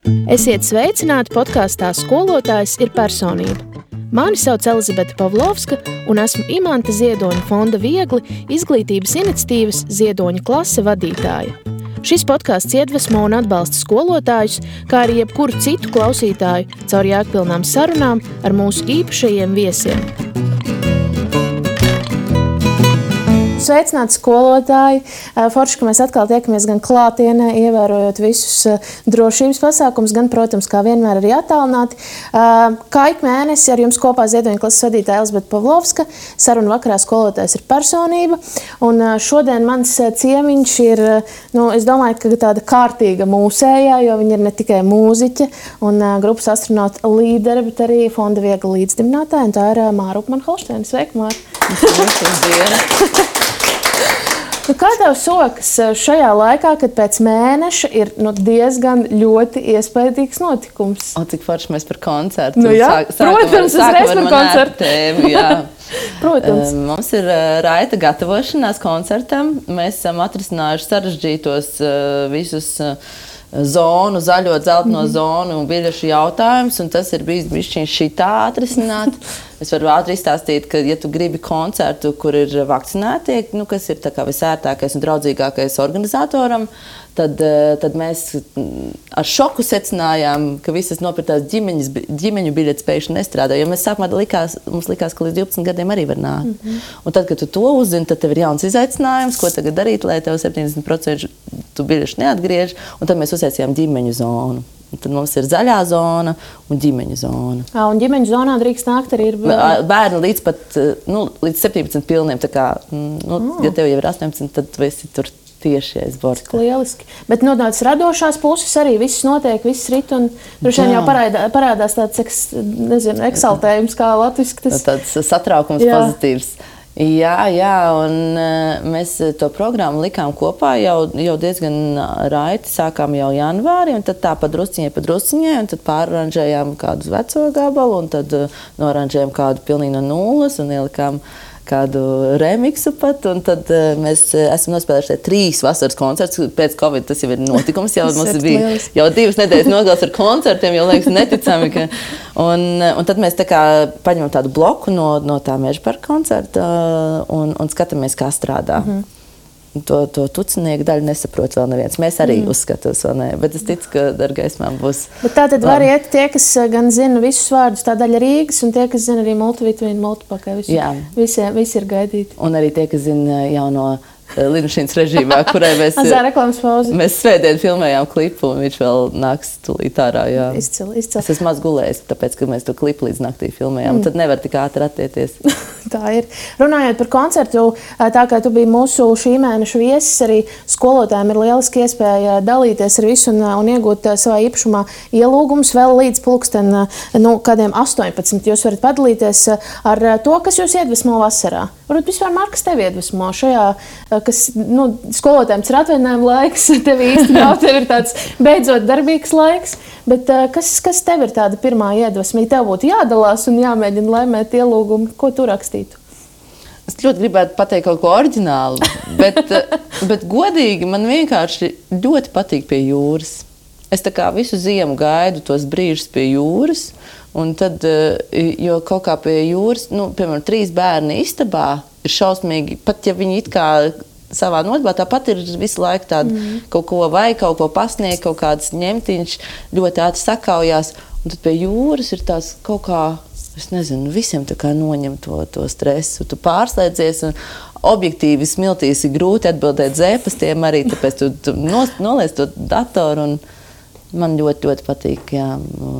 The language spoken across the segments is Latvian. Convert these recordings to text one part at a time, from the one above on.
Esiet sveicināti podkāstā Skolotājs ir personība. Mani sauc Elizabete Pavlovska un esmu Imanta Ziedoņa fonda Viegli izglītības iniciatīvas Ziedoņa klase vadītāja. Šis podkāsts iedvesmo un atbalsta skolotājus, kā arī jebkuru citu klausītāju caur jēgpilnām sarunām ar mūsu īpašajiem viesiem. Sveicināti skolotāji! Forši, ka mēs atkal tiekamies gan klātienē, ievērojot visus drošības pasākumus, gan, protams, kā vienmēr arī attālināti. Kā ik mēnesi ar jums kopā Ziedoņa klases vadītāja Elizabete Pavlovska, saruna vakarā Skolotājs ir personība. Un šodien mans ciemiņš ir, es domāju, ka tāda kārtīga mūsējā, jo viņa ir ne tikai mūziķe un grupas astronauta līdere, bet arī fonda Viegli līdzdibinātāja, un tā ir Māra Upmane-Holšteine. Sveika, Māra! Kā tev sokas šajā laikā, kad pēc mēneša ir diezgan ļoti iespaidīgs notikums? Cik forši mēs par koncertu. Protams, uzreiz par koncertu. Tēmu, jā. Protams. Mums ir raita gatavošanās koncertam. Mēs esam atrisinājuši sarežģītos visus zonu, zaļo, dzelteno zonu un biļešu jautājumus, un tas ir bijis bišķiņ šitā atrisināt. Es varu ātri izstāstīt, ka, ja tu gribi koncertu, kur ir vakcinētie, kas ir tā kā visērtākais un draudzīgākais organizatoram, tad mēs ar šoku secinājām, ka visas nopirktās ģimeņu biļetes pēkšņi nestrādā, jo mēs sākumā mums likās, ka līdz 12 gadiem arī var nākt. Un tad, kad tu to uzzini, tad tev ir jauns izaicinājums, ko tagad darīt, lai tev 70% tu biļešu neatgriež, un tad mēs uztaisījām ģimeņu zonu. Un tad mums ir zaļā zona un ģimeņu zona. Un ģimeņu zonā drīkst nākt arī ir bērni līdz 17 pilniem. Tā kā, ja tev jau ir 18, tad tu esi tur tieši aiz borta. Lieliski. Bet no tādas radošās puses arī viss notiek, viss rit, un droši vien jau parādās tāds, eksaltējums, kā latviski tas. Tāds satraukums pozitīvs. Jā, un mēs to programmu likām kopā jau diezgan raiti, sākām jau janvārī, un tad tā pa drusciņai, un tad pāroranžējām kādu veco gabalu, un tad noranžējām kādu pilnīgi no nulles, un ielikām kādu remiksu pat, un tad mēs esam nospēlējuši 3 vasaras koncertus. Pēc Covid tas jau ir notikums, jau mums bija jau 2 nedēļas nogals ar koncertiem, jau liekas neticami. Un tad mēs tā kā paņemam tādu bloku no tā Mežaparka koncerta un skatāmies, kā strādā. To tucinieku daļu nesaprot vēl neviens. Mēs arī uzskatās vēl ne, bet es ticu, ka ar gaismām būs. Bet tā tad var iet tie, kas gan zina visus vārdus, tā daļa Rīgas, un tie, kas zina arī multivitamīnu, multipakai. Visi ir gaidīti. Un arī tie, kas zina jauno Lidmašīnas režīmā, kurai mēs svētdien filmējām klipu, un viņš vēl nāks tūlīt ārā. Izcili. Es esmu maz gulējis, tāpēc, ka mēs to klipu līdz naktī filmējām. Tad nevar tik ātri attieties. Tā ir. Runājot par koncertu, tā kā tu biji mūsu šī mēneša viesis, arī skolotājiem ir lieliski iespēja dalīties ar visu un iegūt savā īpašumā ielūgumus vēl līdz pulksten kādiem 18. Jūs varat padalīties ar to, kas jūs iedvesmo vasarā. Varbūt vispār, Māra, kas tevi iedvesmo šajā, kas skolotājiem ir atvaļinājuma laiks, tev īsti nav, tev ir tāds beidzot darbīgs laiks, bet kas tev ir tāda pirmā iedvesma? Ja tev būtu jādalās un jāmēģina laimēt ielūgumu, ko tu rakstītu? Es ļoti gribētu pateikt kaut ko oriģinālu, bet godīgi man vienkārši ļoti patīk pie jūras. Es tā kā visu ziemu gaidu tos brīžus pie jūras, un tad, jo kaut kā pie jūras, piemēram, 3 bērni istabā ir šausmīgi, pat ja viņi it kā savā nodarbā, tāpat ir visu laiku tāda kaut ko vai kaut ko pasniegt, kaut kāds ņemtiņš ļoti ātri sakaujās, un tad pie jūras ir tās kaut kā, es nezinu, visiem tā kā noņem to stresu, tu pārslēdzies, un objektīvi smiltīs ir grūti atbildēt zēpastiem arī, tāpēc tu noliec to datoru, un man ļoti, ļoti patīk,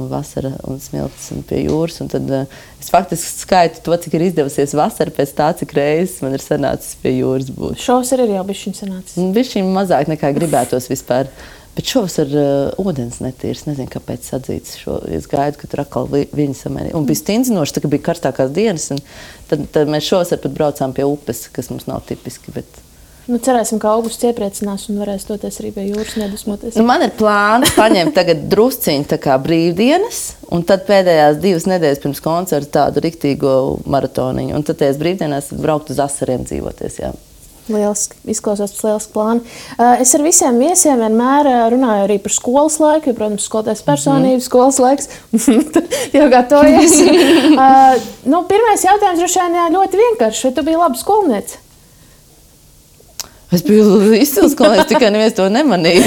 vasara un smiltis un pie jūras, un tad es faktiski skaitu to, cik ir izdevusies vasara pēc tā, cik reizes man ir sanācis pie jūras būt. Šovasar ir jau bišķiņ sanācis. Bišķiņ mazāk nekā gribētos vispār, bet šovasar ūdens netīrs, nezinu, kāpēc sadzīts šo, es gaidu, ka tur atkal viņi samērī. Un bija stindzinoši, tā kā bija karstākās dienas, un tad mēs šovasar pat braucām pie upes, kas mums nav tipiski, bet cerēsim, ka augusts iepriecinās un varēs doties arī pie jūras nedusmoties. Man ir plāns paņemt tagad drusciņu tā kā brīvdienas, un tad pēdējās 2 nedēļas pirms koncerta tādu riktīgo maratoniņu. Un tad tajās brīvdienās braukt uz Asariem dzīvoties, jā. Izklausās pēc lieliska plāna. Es ar visiem viesiem vienmēr runāju arī par skolas laiku, jo, protams, skolotājs personība, skolas laiks. Jau gatavojies. Pirmais jautājums droši vien ļoti vienkāršs. Vai tu biji laba skolniece? Es biju izcils skolnieks, tikai neviens to nemanīja.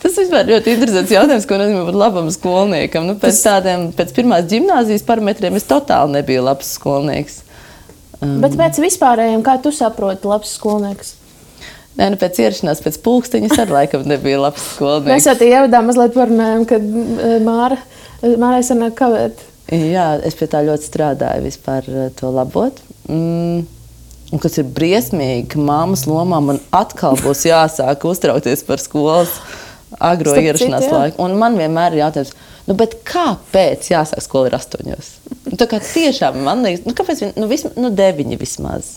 Tas vispār ļoti interesants jautājums, ko nozīmē būt labam skolniekam. Pēc pirmās ģimnāzijas parametriem es totāli nebiju labs skolnieks. Bet pēc vispārējiem, kā tu saproti labs skolnieks? Nē, pēc ierašanās, pēc pulksteņa es arī laikam nebija labs skolnieks. Mēs jau tie ievadā mazliet parunājam, kad Mārai sanāk kavēt. Jā, es pie tā ļoti strādāju vispār to labot. Un kas ir briesmīgi, ka mammas lomā man atkal būs jāsāk uztraukties par skolas agro ierašanās laiku. Un man vienmēr ir jautājums, bet kāpēc jāsāk skola ir 8? Tā kā tiešām man liekas, kāpēc 9 vismaz.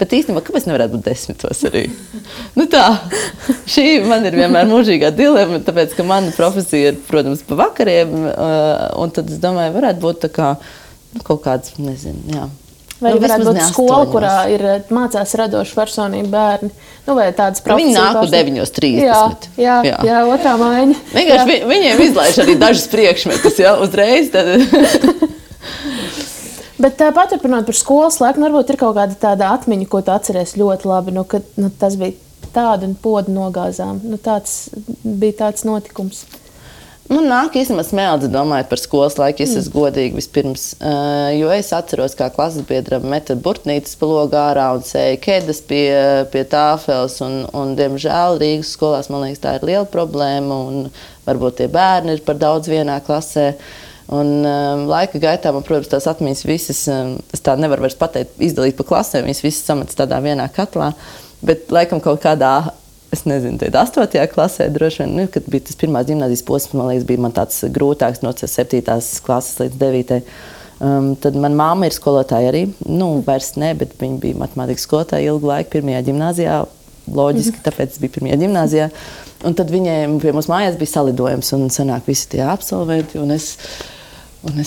Bet īstenībā, kāpēc nevarētu būt 10 arī? Šī man ir vienmēr mūžīgā dilema, tāpēc, ka mana profesija ir, protams, pa vakariem, un tad es domāju, varētu būt tā kā kaut kāds, nezinu, jā. Vai varētu būt skola, kurā ir mācās radoši personība bērni? Vai tādas profesijas? Viņi nāk 9:30. Jā, otrā maiņa. Vienkārši viņiem izlaiž arī dažas priekšmetus, uzreiz. Bet paturpinot par skolas laiku, varbūt ir kaut kāda tāda atmiņa, ko tu atceries ļoti labi, ka tas bija tāda un podu nogāzām. Tāds bija tāds notikums. Man nāk īstenībā smeldzi domājot par skolas laiku, ja es esmu godīgi vispirms, jo es atceros, kā klases biedra meta burtnītes pa logu ārā un sēja ķēdes pie tāfeles, un diemžēl Rīgas skolās, man liekas, tā ir liela problēma, un varbūt tie bērni ir par daudz vienā klasē, un laika gaitā man, protams, tās atmiņas visas, es tā nevaru vairs pateikt, izdalīt pa klasēm, viņas visas samets tādā vienā katlā, bet laikam kaut kādā, es nezinu, 8. klasē droši vien, kad bija tas pirmās ģimnāzijas posms, man liekas, bija man tāds grūtāks no 7. klases līdz 9. Tad man mamma ir skolotāja arī, vairs ne, bet viņa bija matemātikas skolotāja ilgu laiku 1. ģimnāzijā, loģiski, tāpēc bija 1. ģimnāzijā. Un tad viņiem pie mums mājās bija salidojums un sanāk visi tie absolventi, un es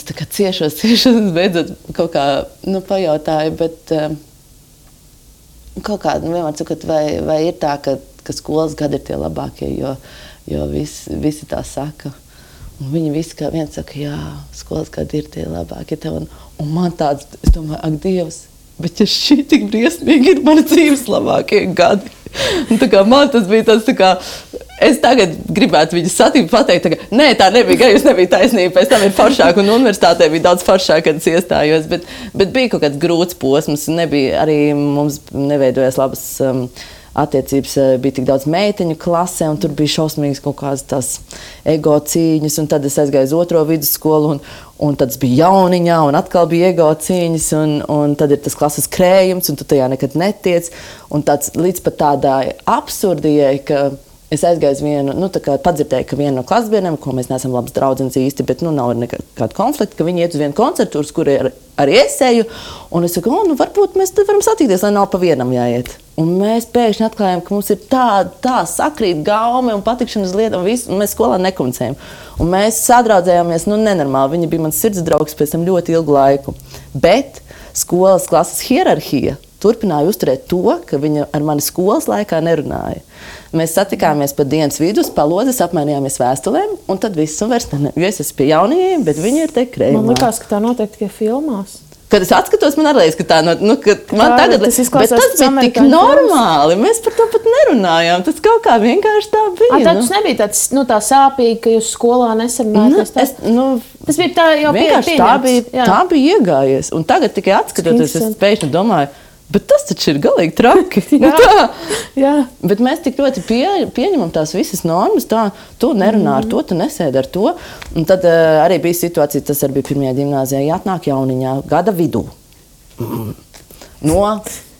tā kā ciešos, beidzot kaut kā, pajautāju, bet kaut kā vienmēr sakot, vai ir tā, ka skolas gadi ir tie labākie, jo visi tā saka. Un viņi visi kā viens saka, jā, skolas gadi ir tie labākie. Un man tāds, es domāju, ak, Dievs, bet ja šī tik briesmīgi ir mana dzīves labākie gadi. Un tā kā man tas bija tāds tā kā, es tagad gribētu viņu satikt, pateikt, ka nē, tā nebija, jūs nebija taisnība, pēc tam ir foršāk, un universitātē bija daudz foršāk, kad es iestājos, bet bija kaut kāds grūts posms, nebija, arī mums neveidojās labas attiecības, bija tik daudz meiteņu klasē, un tur bija šausmīgas kaut kādas tās ego cīņas, un tad es aizgāju uz 2. vidusskolu, un tad es biju jauniņā, un atkal bija ego cīņas, un tad ir tas klases krējums, un tu tajā nekad netiec, un tāds līdz pat tādai absurdijai, ka es aizgāju uz vienu, tā kā padzirdēju, ka viena no klasbiedriem, ko mēs neesam labas draudzenes īsti, bet nav nekāda konflikta, ka viņi iet uz vienu koncertu, uz kuru arī es eju, un es saku, varbūt mēs tad varam satikties, lai nav pa vienam jāiet. Un mēs pēkšņi atklājām, ka mums ir tā sakrīt gaumi un patikšana uz lietām, un mēs skolā nekomunicējam. Un mēs sadraudzējāmies, nenormāli, viņa bija mans sirds draugs pēc tam ļoti ilgu laiku. Bet skolas klases hierarhija turpināja uzturēt to, ka viņa ar mani skolas laikā nerunāja. Mēs satikāmies pa dienas vidus, pa lodzes, apmainījāmies vēstulēm, un tad viss un vairs ne. Jo es esmu pie jaunajiem, bet viņi ir te krējumā. Man likās, ka tā notiek tikai filmās. Kad es atskatos, man arī liekas, ka tā man tagad tas bet tas bija tik normāli. Mēs par to pat nerunājām. Tas kaut kā vienkārši tā bija. Tas nebija tāds, tā sāpīgi, ka jūs skolā nesarunājāt. Tas bija tā jau vienkārši tā bija iegājies. Un tagad tikai atskatoties, es pēkšņi domāju, bet tas taču ir galīgi traki. Jā. Bet mēs tik ļoti pieņemam tās visas normas, tu nerunā ar to, tu nesēdi ar to. Un tad arī bija situācija, tas arī bija 1. ģimnāzijā, jāatnāk jauniņā gada vidū. No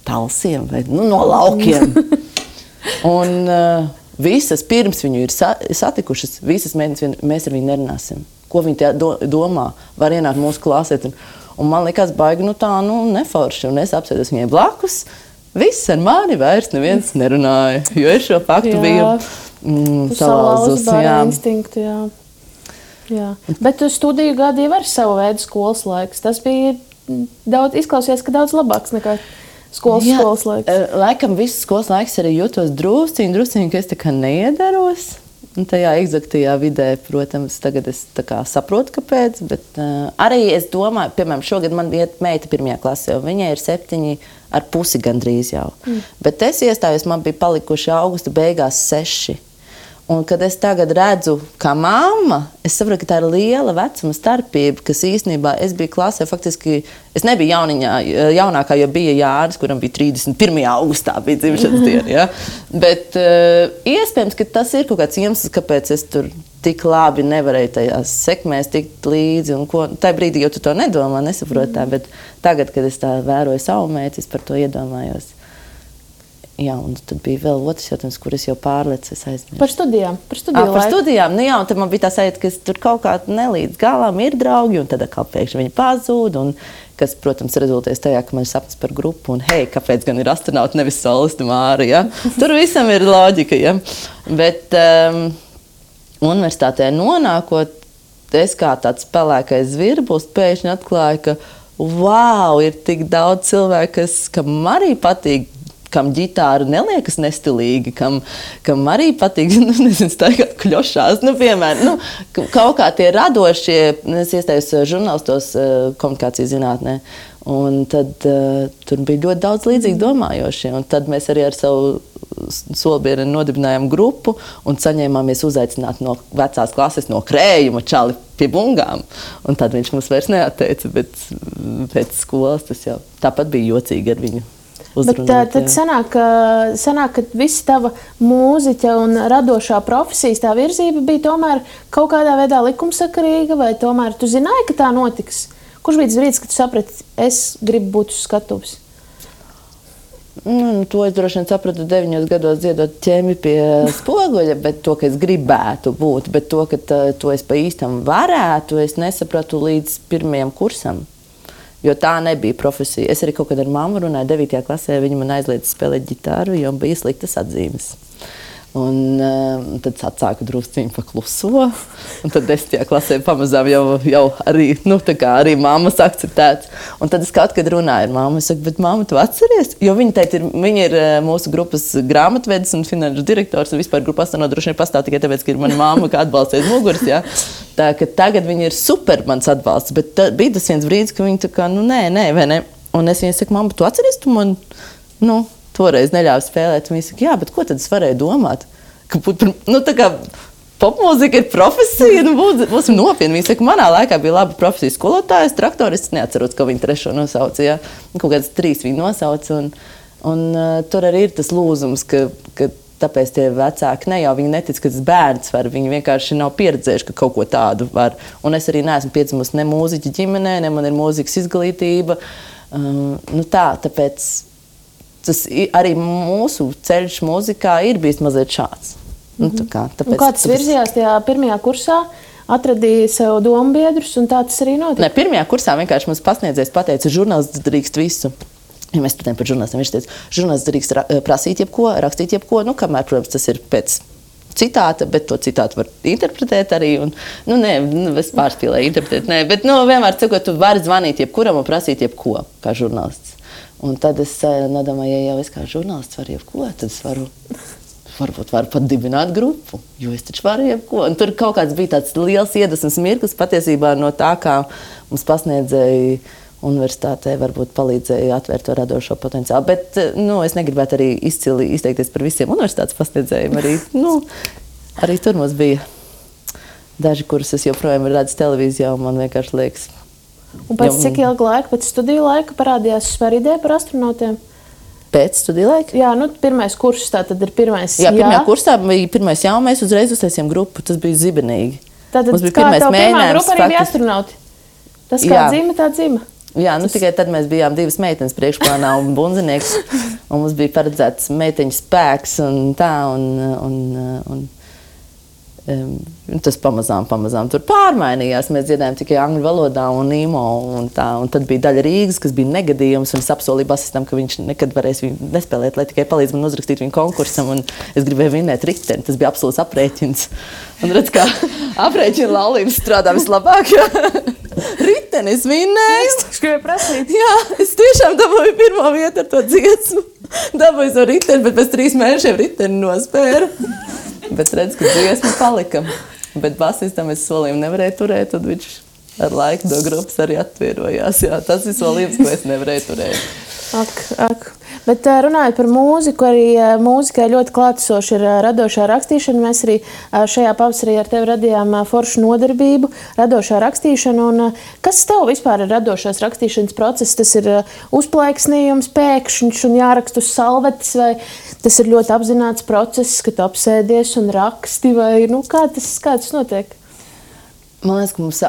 talsiem vai no laukiem. Un visas pirms viņu ir satikušas, visas meitenes, mēs ar viņu nerunāsim. Ko viņi domā, var ienākt mūsu klasēt. Un man likās baigi, neforši. Un es apsēdos viņai blakus. Viss ar mani vairs neviens nerunāja, jo es šo faktu biju salauzus. Jā. Bet studiju gadi jau ar savu veidu skolas laiks. Tas bija izklausījās, ka daudz labāks nekā skolas laiks. Laikam viss skolas laiks arī jūtos drusciņi, ka es tā kā neiedaros. Un tajā eksaktajā vidē, protams, tagad es tā kā saprotu, kāpēc, bet arī es domāju, piemēram, šogad man iet meita 1. klasē, un viņai ir 7,5 gandrīz jau. Bet es iestājos, man bija palikuši augusta beigās 6. Un, kad es tagad redzu, kā mamma, es saprotu, ka tā ir liela vecuma starpība, kas īstenībā es biju klasē, faktiski es nebiju jaunākā, jo bija Jānis, kuram bija 31. augustā bija dzimšanas diena. Ja? Bet iespējams, ka tas ir kaut kāds iemesls, kāpēc es tur tik labi nevarēju tajās sekmēs tikt līdzi. Tā brīdī jau tu to nedomā, nesaproti tā, bet tagad, kad es tā vēroju savu meitu, es par to iedomājos. Jā, un tad bija vēl otrs jautājums, kur es jau pārlecu, es aizmirsu. Par studijām. Par studijām. Nu jā, un tad man bija tā sajūta, ka es tur kaut kā nelīdz galām ir draugi, un tad atkal pēkšņi viņi pazūd, un kas, protams, rezultēs tajā, ka man ir sapnis par grupu, un hei, kāpēc gan ir astronauti, nevis solisti Māri, ja? Tur visam ir loģika, ja? Bet universitātē nonākot, es kā tāds pelēkais zvirbulis pēkšņi atklāju, ka wow, ir tik daudz cilvēku, kam arī patīk, kam ģitāra neliekas nestilīgi, kam arī patīk, nezinu, staigāt kļošās, piemēram, kaut kā tie radošie, es iestājos žurnālistos komunikācijas zinātnē, un tad tur bija ļoti daudz līdzīgi domājošie, un tad mēs arī ar savu solbieri nodibinājām grupu un saņēmāmies uzaicināt no vecās klases, no Krējuma čali pie bungām, un tad viņš mums vairs neatteica, bet pēc skolas tas jau tāpat bija jocīgi ar viņu. Bet tad sanāk, ka visa tava mūziķa un radošā profesijas tā virzība bija tomēr kaut kādā veidā likumsakarīga, vai tomēr tu zināji, ka tā notiks? Kurš bija tas brīdis, kad tu saprati, es gribu būt uz skatuves? To es droši vien sapratu 9 gados dziedot ķēmi pie spoguļa, bet to, ka es gribētu būt, bet to, ka to es pa īstam varētu, es nesapratu līdz 1. kursam. Jo tā nebija profesija. Es arī kaut kad ar mammu runāju 9. klasē, viņa man aizliedza spēlēt ģitāru, jo bija sliktas atzīmes. Un tad atsāku drusciņu pakluso, un tad 10. klasē pamazām jau arī, tā kā arī mammas akceptēts. Un tad es kaut kad runāju ar mammu, es saku, bet mamma, tu atceries? Jo viņa ir mūsu grupas grāmatvedis un finanšu direktors, un vispār grupa astronauti droši vien pastāv tikai tāpēc, ka ir mana mamma, kā atbalsta aiz muguras, ja? Tā, ka tagad viņa ir super mans atbalsts, bet bija tas viens brīdis, ka viņa tā kā, nē, vai ne? Un es viņai saku, mamma, tu atceries, tu man, toreiz neļāva spēlēt. Viņa saka, jā, bet ko tad es varēju domāt? Ka tā kā popmūzika ir profesija, būsim nopietni. Viņa saka, manā laikā bija laba profesija skolotājs, traktorists, neatceros, ko viņa 3. nosauca, jā. Kaut kāds 3 viņa nosauca, un tur arī ir tas lūzums, ka tāpēc tie vecāki ne jau viņi netic, ka tas bērns var, viņi vienkārši nav pieredzējuši, ka kaut ko tādu var. Un es arī neesmu piedzimusi ne mūziķa ģimenē, ne man ir mūzikas izglītība. Tāpēc tas arī mūsu ceļš mūzikā ir bijis mazliet šāds. Kā tas virzījās tajā 1. kursā, atradīja sev dombiedrus, un tā tas arī notika? Ne, 1. kursā vienkārši mums pasniedzējs pateica, žurnālists drīkst visu. Ja mēs patējam par žurnālistiem, viņš teica, žurnālists drīkst prasīt jebko, rakstīt jebko, kamēr, protams, tas ir pēc citāta, bet to citātu var interpretēt arī, un, es pārspīlēju interpretēt, bet, vienmēr cikot, tu vari zvanīt jebkuram un prasīt jebko, kā žurnālists. Un tad es nedomāju, ja jau es kā žurnālists varu jebko, tad es varbūt varu pat dibināt grupu, jo es taču varu jebko. Un tur kaut kāds bija tāds liels iedvesmas mirklis patiesībā no tā, kā mums pasniedzēja universitātē, varbūt palīdzēja atvērt to radošo potenciālu. Bet, es negribētu arī izcili izteikties par visiem universitātes pasniedzējiem. Arī tur mums bija daži, kurus es joprojām redzu televīzijā, un man vienkārši liekas. Un pēc cik ilga laika, pēc studiju laika parādījās vispār ideja par astronautiem? Pēc studiju laika? Jā, 1. kurs, tā tad ir 1. Jā, 1. kursā bija 1. jā, un mēs uzreiz uztaisījām grupu, tas bija zibenīgi. Tātad kā tev pirmā grupa arī bija astronauti? Tas kā dzīme, tā dzīme? Jā, tikai tad mēs bijām 2 meitenes priekšplānā un bunzinieks, un mums bija paredzēts meiteņu spēks un tā, un tas pamazām tur pārmainījās. Mēs dziedājām tikai angļu valodā un īmo un tā, un tad bija daļa Rīgas, kas bija negadījums, un es apsolīju basistam, ka viņš nekad varēs viņu nespēlēt, lai tikai palīdz man uzrakstīt viņu konkursam, un es gribēju vinēt riteni. Tas bija absolūts aprēķins. Un redz, kā aprēķina laulības strādā vislabāk. riteni, es vinnēju. Es gribēju prasīt. Jā, es tiešām dabūju pirmo vietu ar to dziesmu. Dabūju to riteni, bet pēc 3 mēnešiem riteni nospēru. Bet redz, ka dziesma palika. Bet basistam es solījumu nevarēju turēt, tad viņš ar laiku no grupas arī atvienojās. Jā, tas ir solījums, ko es nevarēju turēt. Ak. Bet runājot par mūziku, arī mūzikai ļoti klātesoši ir radošā rakstīšana. Mēs arī šajā pavasarī ar tevi radījām foršu nodarbību, radošā rakstīšana. Un kas tev vispār ir radošās rakstīšanas process? Tas ir uzplaiksnījums, pēkšņš un jāraksta uz salvetes, vai tas ir ļoti apzināts process, ka tu apsēdies un raksti, vai kā tas notiek? Man liekas, ka mums,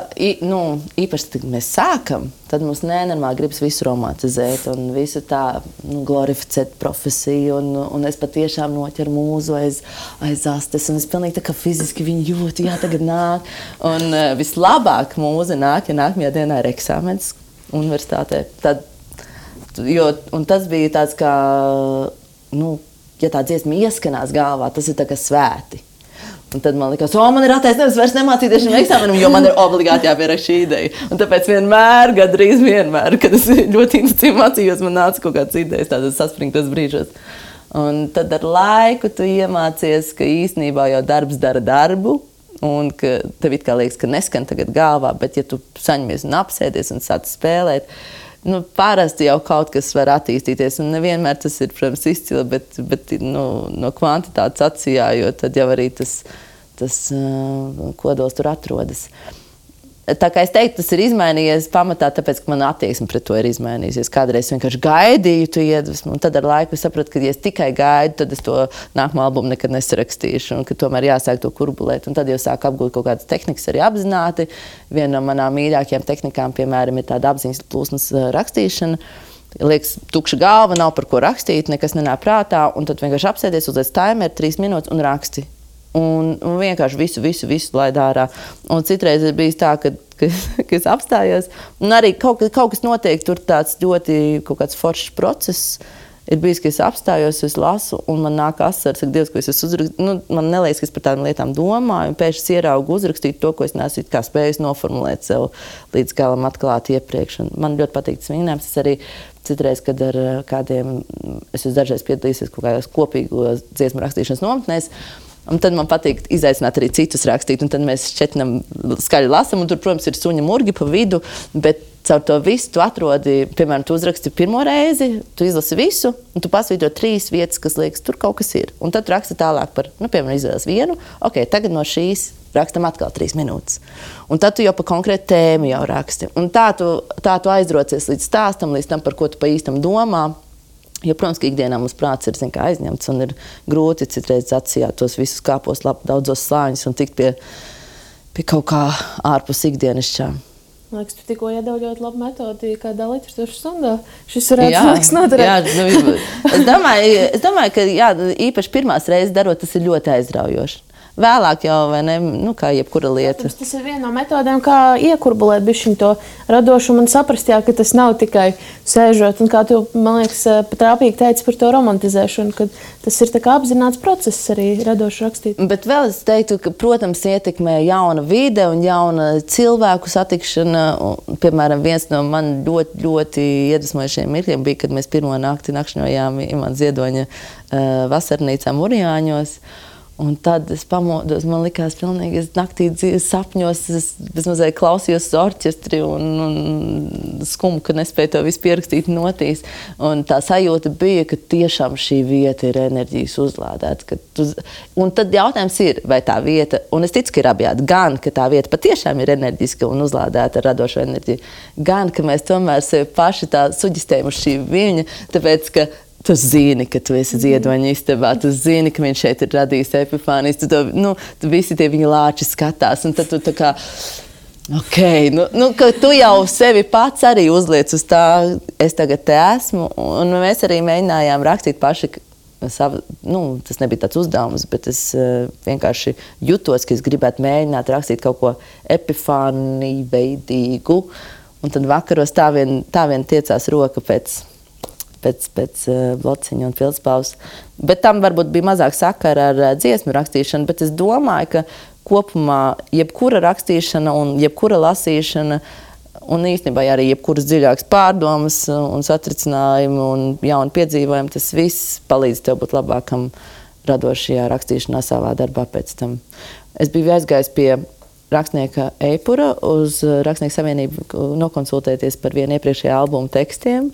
īpaši, kad mēs sākam, tad mums nenormāli gribas visu romantizēt un visu tā glorificēt profesiju. Un es patiešām noķeru mūzu aiz astes, un es pilnīgi tā kā fiziski viņu jūtu, jā, tagad nāk. Un vislabāk mūza nāk, ja nākamajā dienā ir eksāmens universitātē. Un tas bija tāds kā, ja tā dziesma ieskanās galvā, tas ir tā kā svēti. Un tad man likās, man ir attaisnojums vairs nemācīties šim eksāmenam, jo man ir obligāti jāpieraksta šī ideja. Un tāpēc gandrīz vienmēr, kad es ļoti intensīvi mācījos, man nāca kaut kāds idejas tādos saspringtos brīžos. Un tad ar laiku tu iemācies, ka īstenībā jau darbs dara darbu, un ka tev it kā liekas, ka neskan tagad galvā, bet ja tu saņemies un apsēdies un sāc spēlēt, parasti jau kaut kas var attīstīties, un nevienmēr tas ir, protams, izcili, bet no kvantitātes atsijā, jo tad jau arī tas kodols tur atrodas. Tā kā es teiktu, tas ir izmainījies pamatā, tāpēc, ka man attieksme pret to ir izmainījusies. Kādreiz vienkārši gaidīju tu iedvesmu, un tad ar laiku sapratu, ka ja es tikai gaidu, tad es to nākamo albumu nekad nesarakstīšu, un ka tomēr jāsāk to kurbulēt. Un tad jau sāku apgūt kaut kādas tehnikas arī apzināti. Viena no manām mīļākajām tehnikām, piemēram, ir tāda apziņas plūsmas rakstīšana. Liekas, tukša galva, nav par ko rakstīt, nekas nenāk prātā, un tad vienkārši apsēdies, uzliec timeru 3 minūtes un raksti. Un vienkārši visu laid ārā. Un citreiz ir bijis tā, ka es apstājos. Un arī kaut kas notiek, tur tāds ļoti kaut kāds foršs process. Ir bijis, ka es apstājos, es lasu, un man nāk asaras, ka Dievs, ko es uzrakstīju. Man neliekas, ka es par tādām lietām domāju, un pēkšņi ieraugu uzrakstīt to, ko es neesmu kā spējis noformulēt sev līdz galam atklāt iepriekš. Un man ļoti patīk tas vingrinājums. Es arī citreiz, kad ar kādiem, es esmu dažreiz piedalīsies kaut kādās kopīgos dziesmu rakstīšanas nometnēs. Un tad man patīk izaicināt arī citus rakstīt, un tad mēs šķetinam skaļi lasam, un tur, protams, ir suņa murgi pa vidu, bet caur to visu tu atrodi, piemēram, tu uzraksti pirmo reizi, tu izlasi visu, un tu pasvītro 3 vietas, kas liekas, tur kaut kas ir. Un tad tu raksti tālāk par, piemēram, izvēles vienu, tagad no šīs rakstam atkal 3 minūtes. Un tad tu jau pa konkrētu tēmu jau raksti. Un tā tu aizrocies līdz stāstam, līdz tam, par ko tu pa īstam domā. Jo, protams, ka ikdienā mums prāts ir aizņemts un ir grūti citreiz atsijāt tos visus kāpos daudzos slāņus un tikt pie kaut kā ārpus ikdienišķā. Man liekas, tu tikko iedevi ļoti labu metodi, kādā literatūras stundā. Šis varētu noderēt. Jā, es domāju, ka īpaši pirmās reizes darot, tas ir ļoti aizraujoši. Vēlāk jau, vai ne, kā jebkura lieta. Protams, tas ir viena no metodēm, kā iekurbulēt bišķiņ to radošumu un saprast, ka tas nav tikai sēžot. Un kā tu, man liekas, trāpīgi teici par to romantizēšanu, ka tas ir tā kā apzināts process arī radoši rakstīt. Bet vēl es teiktu, ka, protams, ietekmē jauna vide un jauna cilvēku satikšana. Piemēram, viens no man ļoti, ļoti iedvesmojušiem mirkļiem bija, kad mēs pirmo nakti nakšņojām Imants Ziedoņa vasarnīcā Murijāņos. Un tad es pamodos, man likās pilnīgi, es naktī sapņos, es bezmazliet klausījos uz orķestri un skumu, ka nespēju to visu pierakstīt notīs. Un tā sajūta bija, ka tiešām šī vieta ir enerģijas uzlādēta. Un tad jautājums ir, vai tā vieta, un es ticu, ka ir abjādi, gan, ka tā vieta patiešām ir enerģiska un uzlādēta ar radošo enerģiju, gan, ka mēs tomēr sevi paši tā suģistējam uz šī viļņa, tāpēc, ka tu zini, ka tu esi Ziedoņa istabā, tu zini, ka viņš šeit ir radījis Epifānijas, tu visi tie viņa lāči skatās, un tad tu tā kā, ka tu jau sevi pats arī uzliec uz tā, es tagad te esmu, un mēs arī mēģinājām rakstīt paši savu, tas nebija tāds uzdevums, bet es vienkārši jutos, ka es gribētu mēģināt rakstīt kaut ko epifāniju veidīgu, un tad vakaros tā vien tiecās roka pēc blociņa un pildspalvas. Bet tam varbūt bija mazāk sakara ar dziesmu rakstīšanu, bet es domāju, ka kopumā jebkura rakstīšana un jebkura lasīšana Un īstenībā arī jebkuras dziļākas pārdomas un satricinājumi un jauni piedzīvojumi, tas viss palīdz tev būt labākam radošajā rakstīšanā savā darbā pēc tam. Es biju aizgājis pie rakstnieka Eipura uz Rakstnieku savienību nokonsultēties par vienu iepriekšējā albuma tekstiem.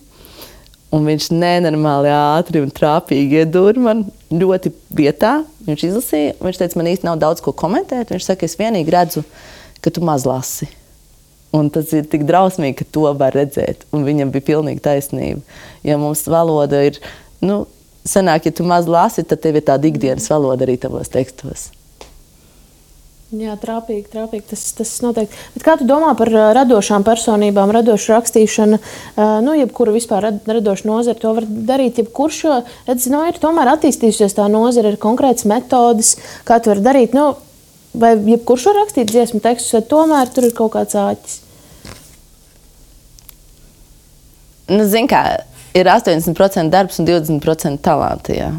Un viņš nenormāli ātri un trāpīgi iedūra man ļoti vietā. Viņš izlasīja, viņš teica, man īsti nav daudz ko komentēt. Viņš saka, es vienīgi redzu, ka tu maz lasi. Un tas ir tik drausmīgi, ka to var redzēt. Un viņam bija pilnīgi taisnība. Ja mums valoda ir, sanāk, ja tu maz lasi, tad tev ir tāda ikdienas valoda arī tavos tekstos. Jā, trāpīgi, tas noteikti. Bet kā tu domā par radošām personībām, radošu rakstīšanu, jebkuru vispār radošu nozari, to var darīt jebkurš, jo, ir tomēr attīstījusies tā nozara, ir konkrētas metodas, kā tu vari darīt, vai jebkurš var rakstīt dziesmu tekstus, vai tomēr tur ir kaut kāds āķis? Zini kā, ir 80% darbs un 20% talanti, jā.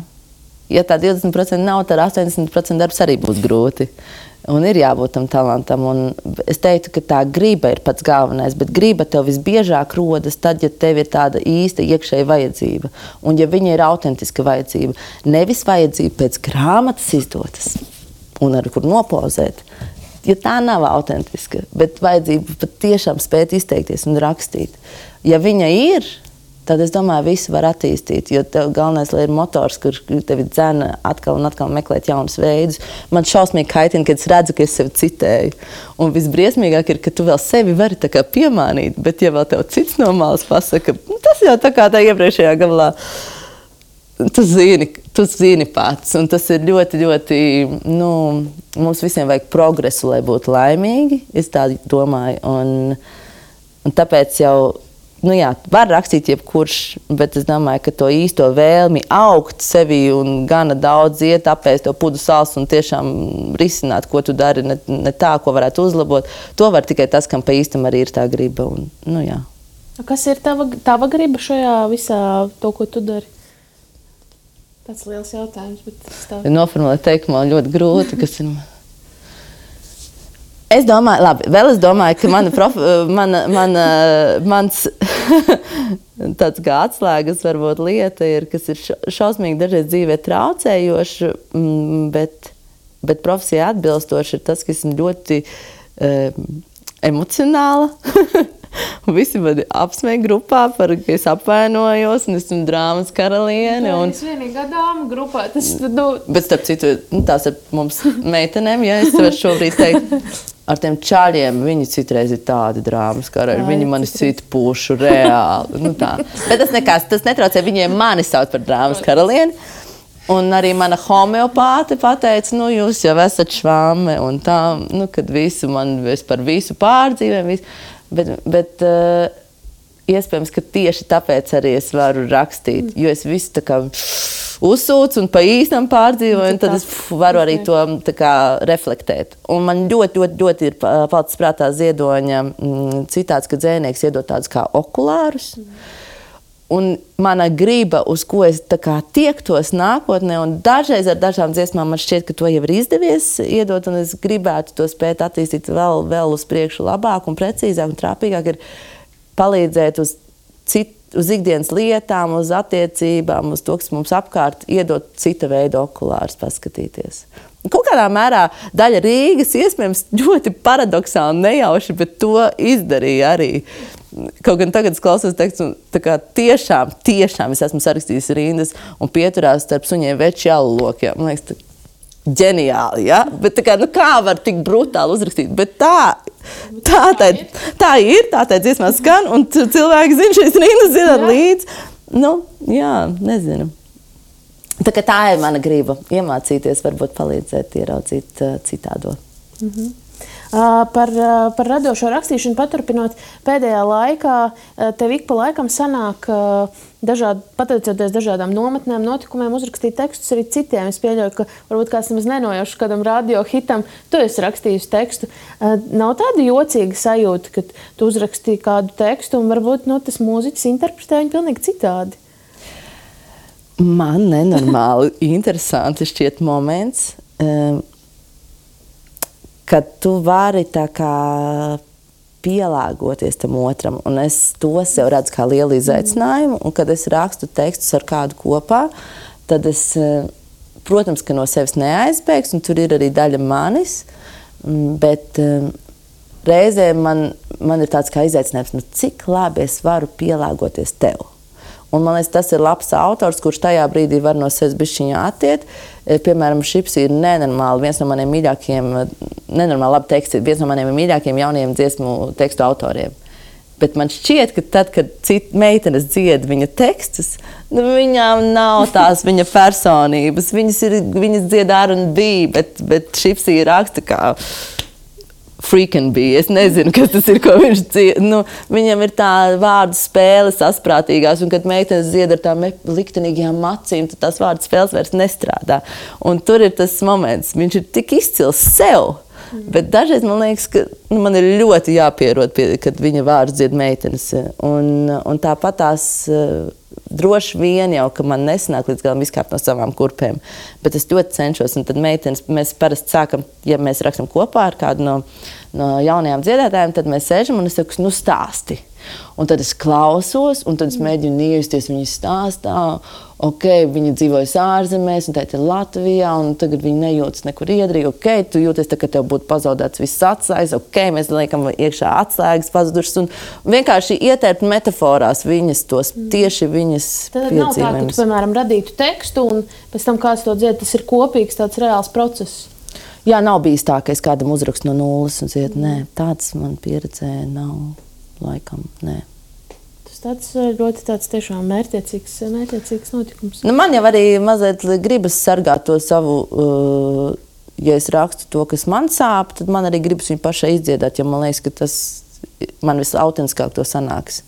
Ja tā 20% nav, tad 80% darbs arī būs grūti. Un ir jābūt tam talantam. Un es teiktu, ka tā griba ir pats galvenais, bet griba tev visbiežāk rodas tad, ja tev ir tāda īsta iekšēja vajadzība. Un ja viņa ir autentiska vajadzība, nevis vajadzība pēc grāmatas izdotas un ar kur nopozēt, ja tā nav autentiska, bet vajadzība pat tiešām spēt izteikties un rakstīt. Ja viņa ir, tad es domāju, visu var attīstīt, jo tev galvenais, lai ir motors, kur tevi dzena atkal un atkal meklēt jaunus veidus. Man šausmīgi kaitina, kad es redzu, ka es sevi citēju. Un visbriesmīgāk ir, ka tu vēl sevi vari tā kā piemānīt, bet ja vēl tev cits no malas pasaka, tas jau tā kā tā iepriekšējā gabalā, tu zini pats. Un tas ir ļoti, ļoti, mums visiem vajag progresu, lai būtu laimīgi, es tā domāju. Un tāpēc jau, var rakstīt jebkurš, bet es domāju, ka to īsto vēlmi augt sevi un gana daudz iet, apēst to pudu sāls un tiešām risināt, ko tu dari, ne tā, ko varētu uzlabot. To var tikai tas, kam pa īstam arī ir tā griba. Un, jā. Kas ir tava griba šajā visā to, ko tu dari? Tāds liels jautājums, bet noformulēt teikumu man ļoti grūti, kas ir... Es domāju, ka mans tāds kā atslēgas varbūt lieta ir, kas ir šausmīgi dažreiz dzīvē traucējoši, bet profesijai atbilstoši ir tas, ka esmu ļoti emocionāla. Visi mani apsmēja grupā, ka es apvainojos un esmu drāmas karaliene. Es vienīgā dāma grupā. Bet starp citu, tās ir mums meitenēm, ja es varu šobrīd teikt, ar tiem čaļiem viņi citreiz ir tādi drāmas karalieni. Viņi mani cita pušu reāli. Bet tas netraucē, viņiem mani sauc par drāmas karalieni. Un arī mana homeopāte pateica, jūs jau esat švame un tā, kad visu man par visu pārdzīvēm, bet iespējams, ka tieši tāpēc arī es varu rakstīt, jo es visu tā kā uzsūcu un pa īstam pārdzīvoju, un tad es varu arī to tā kā reflektēt. Un man ļoti, ļoti, ļoti ir palicis prātā Ziedoņa citāts, ka dzējnieks iedod tādus kā okulārus. Un mana griba, uz ko es tā kā tiektos nākotnē, un dažreiz ar dažām dziesmām man šķiet, ka to jau ir izdevies iedot, un es gribētu to spēt attīstīt vēl uz priekšu labāk un precīzāk un trāpīgāk, ir palīdzēt uz ikdienas lietām, uz attiecībām, uz to, kas mums apkārt, iedot cita veida okulārus paskatīties. Kaut kādā mērā daļa Rīgas iespējams ļoti paradoksāli nejauši, bet to izdarīja arī. Kaut gan tagad es klausos tekstu, tā kā tiešām es esmu sarakstījis rindas un pieturās starp suņiem veči alulokiem. Man liekas, ģeniāli, ja? Bet tā kā, kā var tik brutāli uzrakstīt? Bet tā ir, tā dziesmā skan, un cilvēki zina šīs rindas zināt līdz. Nezinu. Tā ir mana griba iemācīties, varbūt palīdzēt ieraudzīt citādo. Par radošo rakstīšanu paturpinot, pēdējā laikā tev ik pa laikam sanāk pateicoties dažādām nometnēm, notikumiem, uzrakstīt tekstus arī citiem. Es pieļauju, ka varbūt kāds nemaz nenojauši kādam radio hitam, tu esi rakstījis tekstu. Nav tāda jocīga sajūta, ka tu uzrakstīji kādu tekstu un varbūt tas mūziķis interpretē viņu pilnīgi citādi? Man nenormāli interesanti šķiet moments, kad tu vari tā kā pielāgoties tam otram. Un es to sev redzu kā lielu izaicinājumu. Un, kad es rakstu tekstus ar kādu kopā, tad es, protams, ka no sevis neaizbēgs, un tur ir arī daļa manis, bet reizēm man ir tāds kā izaicinājums, cik labi es varu pielāgoties tev. Un man liekas, tas ir labs autors, kurš tajā brīdī var no sevis bišķiņā attiet. Piemēram, Šips ir nenormāli viens no maniem mīļākajiem, nenormāli labi teksti, viens no maniem mīļākajiem jaunajiem dziesmu tekstu autoriem. Bet man šķiet, ka tad, kad cita meitenes dzied viņa tekstus, viņām nav tās viņa personības. Viņas dzied R&B, bet Šips ir raksta kā freaking bija. Es nezinu, kas tas ir, ko viņš dzied. Viņam ir tā vārdu spēle sasprātīgās, un kad meitenes dzied ar tām liktenīgajām acīm, tad tās vārdu spēles vairs nestrādā. Un tur ir tas moments, viņš ir tik izcils sev, bet dažreiz man liekas, ka man ir ļoti jāpierod, kad viņa vārdu dzied meitenes. Un tāpat tās droši vien jau, ka man nesanāk līdz galam izkāpt no savām kurpēm, bet es ļoti cenšos, un tad meitenes, mēs parasti sākam, ja mēs rakstam kopā ar kādu no jaunajām dziedātājiem, tad mēs sēžam un es saku, stāsti. Un tad es klausos, un tad es mēģinu iejusties viņas stāstā. Viņa dzīvojas ārzemēs, un tā ir Latvijā, un tagad viņa nejūtas nekur iedrīgi. Tu jūties tā, ka tev būtu pazaudēts viss atslēgas. Mēs liekam iekšā atslēgas pazudušas, un vienkārši ietērpt metaforās viņas tos, tieši viņas piedzīvojumus. Tad nav tā, ka tu, piemēram, radītu tekstu, un pēc tam kāds to dzied, tas ir kopīgs tāds reāls process. Jā, nav bijis tā, ka es kādam uzrakstu no nulles un dzied, nē, tāds man pieredzē nav. Laikam, nē. Tas tāds ļoti tāds tiešām mērķiecīgs notikums. Man jau arī mazliet gribas sargāt to savu, ja es rakstu to, kas man sāp, tad man arī gribas viņu pašai izdziedāt, jo man liekas, ka tas man visautentiskāk to sanāks.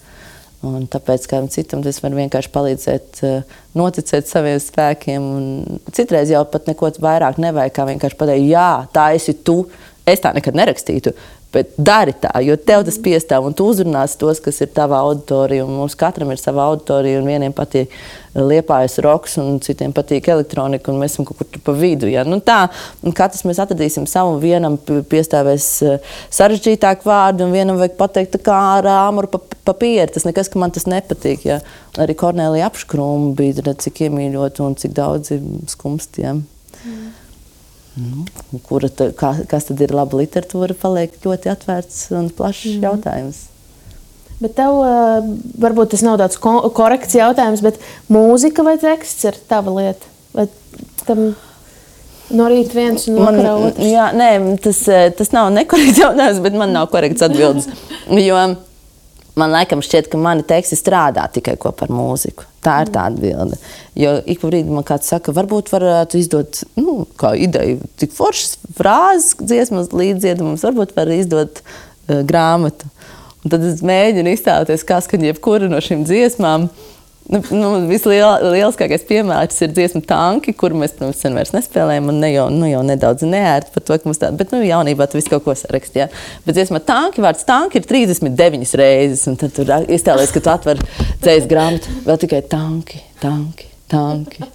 Un tāpēc kādam citam es varu vienkārši palīdzēt, noticēt saviem spēkiem. Un citreiz jau pat neko vairāk nevajag, kā vienkārši pateikt, jā, tā esi tu, es tā nekad nerakstītu. Bet dari tā, jo tev tas piestāv, un tu uzrunāsi tos, kas ir tavā auditorija, un mums katram ir sava auditorija, un vieniem patīk Liepājas roks, un citiem patīk elektronika, un mēs esam kaut kur tur pa vidu. Ja? Tā, un katrs mēs atradīsim savu, vienam piestāvēs sarežģītāk vārdu, un vienam vajag pateikt tā kā ar āmuru papīri. Tas nekas, ka man tas nepatīk. Ja? Arī Kornelija Apškrūma bija, cik iemīļot, un cik daudzi skumstiem. Kas tad ir laba literatūra, paliek ļoti atvērts un plašs jautājums. Bet tev, varbūt tas nav tāds korekts jautājums, bet mūzika vai teksts ir tava lieta? Vai tam no rīta viens un vakarā otrs? Jā, nē, tas nav nekorekts jautājums, bet man nav korekts atbildes. Jo man laikam šķiet, ka mani teksti strādā tikai kopā ar mūziku. Tā ir tā atbilde. Jo ik pa brīdi man kāds saka, varbūt varētu izdot, kā ideju, tik foršas frāzes dziesmas līdzdziedumums, varbūt var izdot grāmatu. Un tad es mēģinu iztēloties, kā skan jebkura no šīm dziesmām. Vislielākais piemērs ir dziesma Tanki, kuru mēs, sen vairs nespēlējam, un jau nedaudz neērti par to, ka mums tāda, bet jaunībā tu visu kaut ko sarakst, jā. Bet dziesma Tanki, vārds Tanki ir 39 reizes, un tad tur iztēlies, ka tu atver dzējas grāmatu, vēl tikai tanki,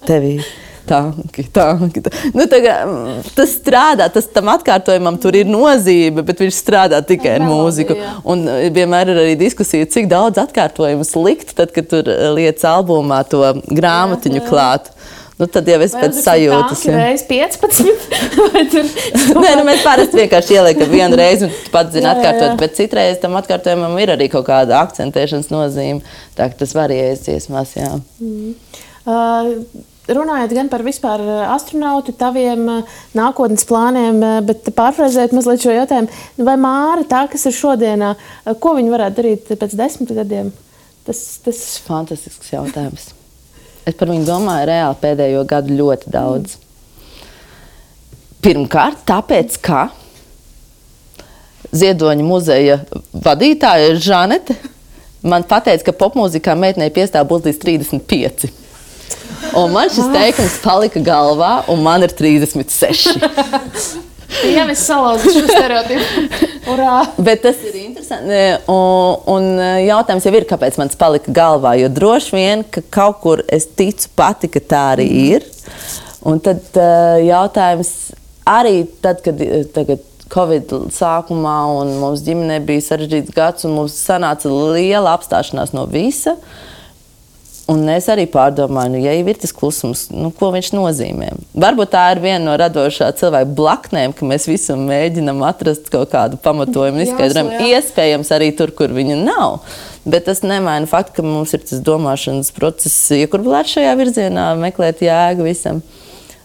tevī. Tanki. Tas strādā, tam atkārtojumam tur ir nozīme, bet viņš strādā tikai ar mūziku. Un vienmēr ir arī diskusija, cik daudz atkārtojumus likt, tad, kad tur liec albumā to grāmatiņu klāt. Tad jau es pēc sajūtas. Vai reiz 15? Nē, mēs parasti vienkārši ieliekam vienu reizi un pats zina atkārtot, bet citreiz tam atkārtojumam ir arī kaut kāda akcentēšanas nozīme. Tā, ka tas varējas dziesmās, jā. Runājot gan par vispār astronautu, taviem nākotnes plāniem, bet pārfrāzēt mazliet šo jautājumu, vai Māra, tā, kas ir šodienā, ko viņa varētu darīt pēc 10 gadiem? Tas fantastisks jautājums. Es par viņu domāju reāli pēdējo gadu ļoti daudz. Pirmkārt, tāpēc, ka Ziedoņa muzeja vadītāja Žanete man pateica, ka popmūzikā meitenei piestāv būt līdz 35. Un man šis teikums palika galvā, un man ir 36. Jā, mēs salauzu šo stereotipu. Urā! Bet tas ir interesanti. Un jautājums jau ir, kāpēc man tas palika galvā. Jo droši vien, ka kaut kur es ticu pati, ka tā arī ir. Un tad jautājums arī tad, kad tagad Covid sākumā, un mums ģimenē bija sarežģīts gads, un mums sanāca liela apstāšanās no visa. Un es arī pārdomāju, ja jau ir tas klusums, ko viņš nozīmē. Varbūt tā ir viena no radošā cilvēka blaknēm, ka mēs visam mēģinam atrast kaut kādu pamatojumu un izskaidrojumu. Iespējams arī tur, kur viņa nav. Bet tas nemaina faktu, ka mums ir tas domāšanas process, iekurbulēt šajā virzienā, meklēt jēgu visam.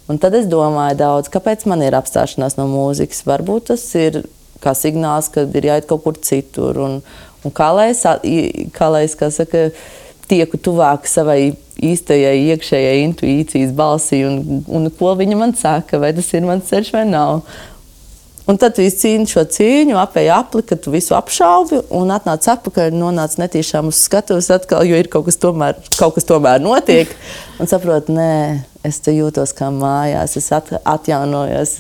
Un tad es domāju daudz, kāpēc man ir apstāšanās no mūzikas. Varbūt tas ir kā signāls, kad ir jāiet kaut kur citur. Un kā lai es, kā saka, tieku tuvāk savai īstajai iekšējai intuīcijas balsī un ko viņa man saka, vai tas ir mans ceļš vai nav. Un tad tu izcīni šo cīņu, apēji apli, ka tu visu apšaubi un atnāc atpakaļ, nonāc netīšām uz skatuves atkal, jo ir kaut kas tomēr notiek. Un saprot, nē, es te jūtos kā mājās, es atjaunojos,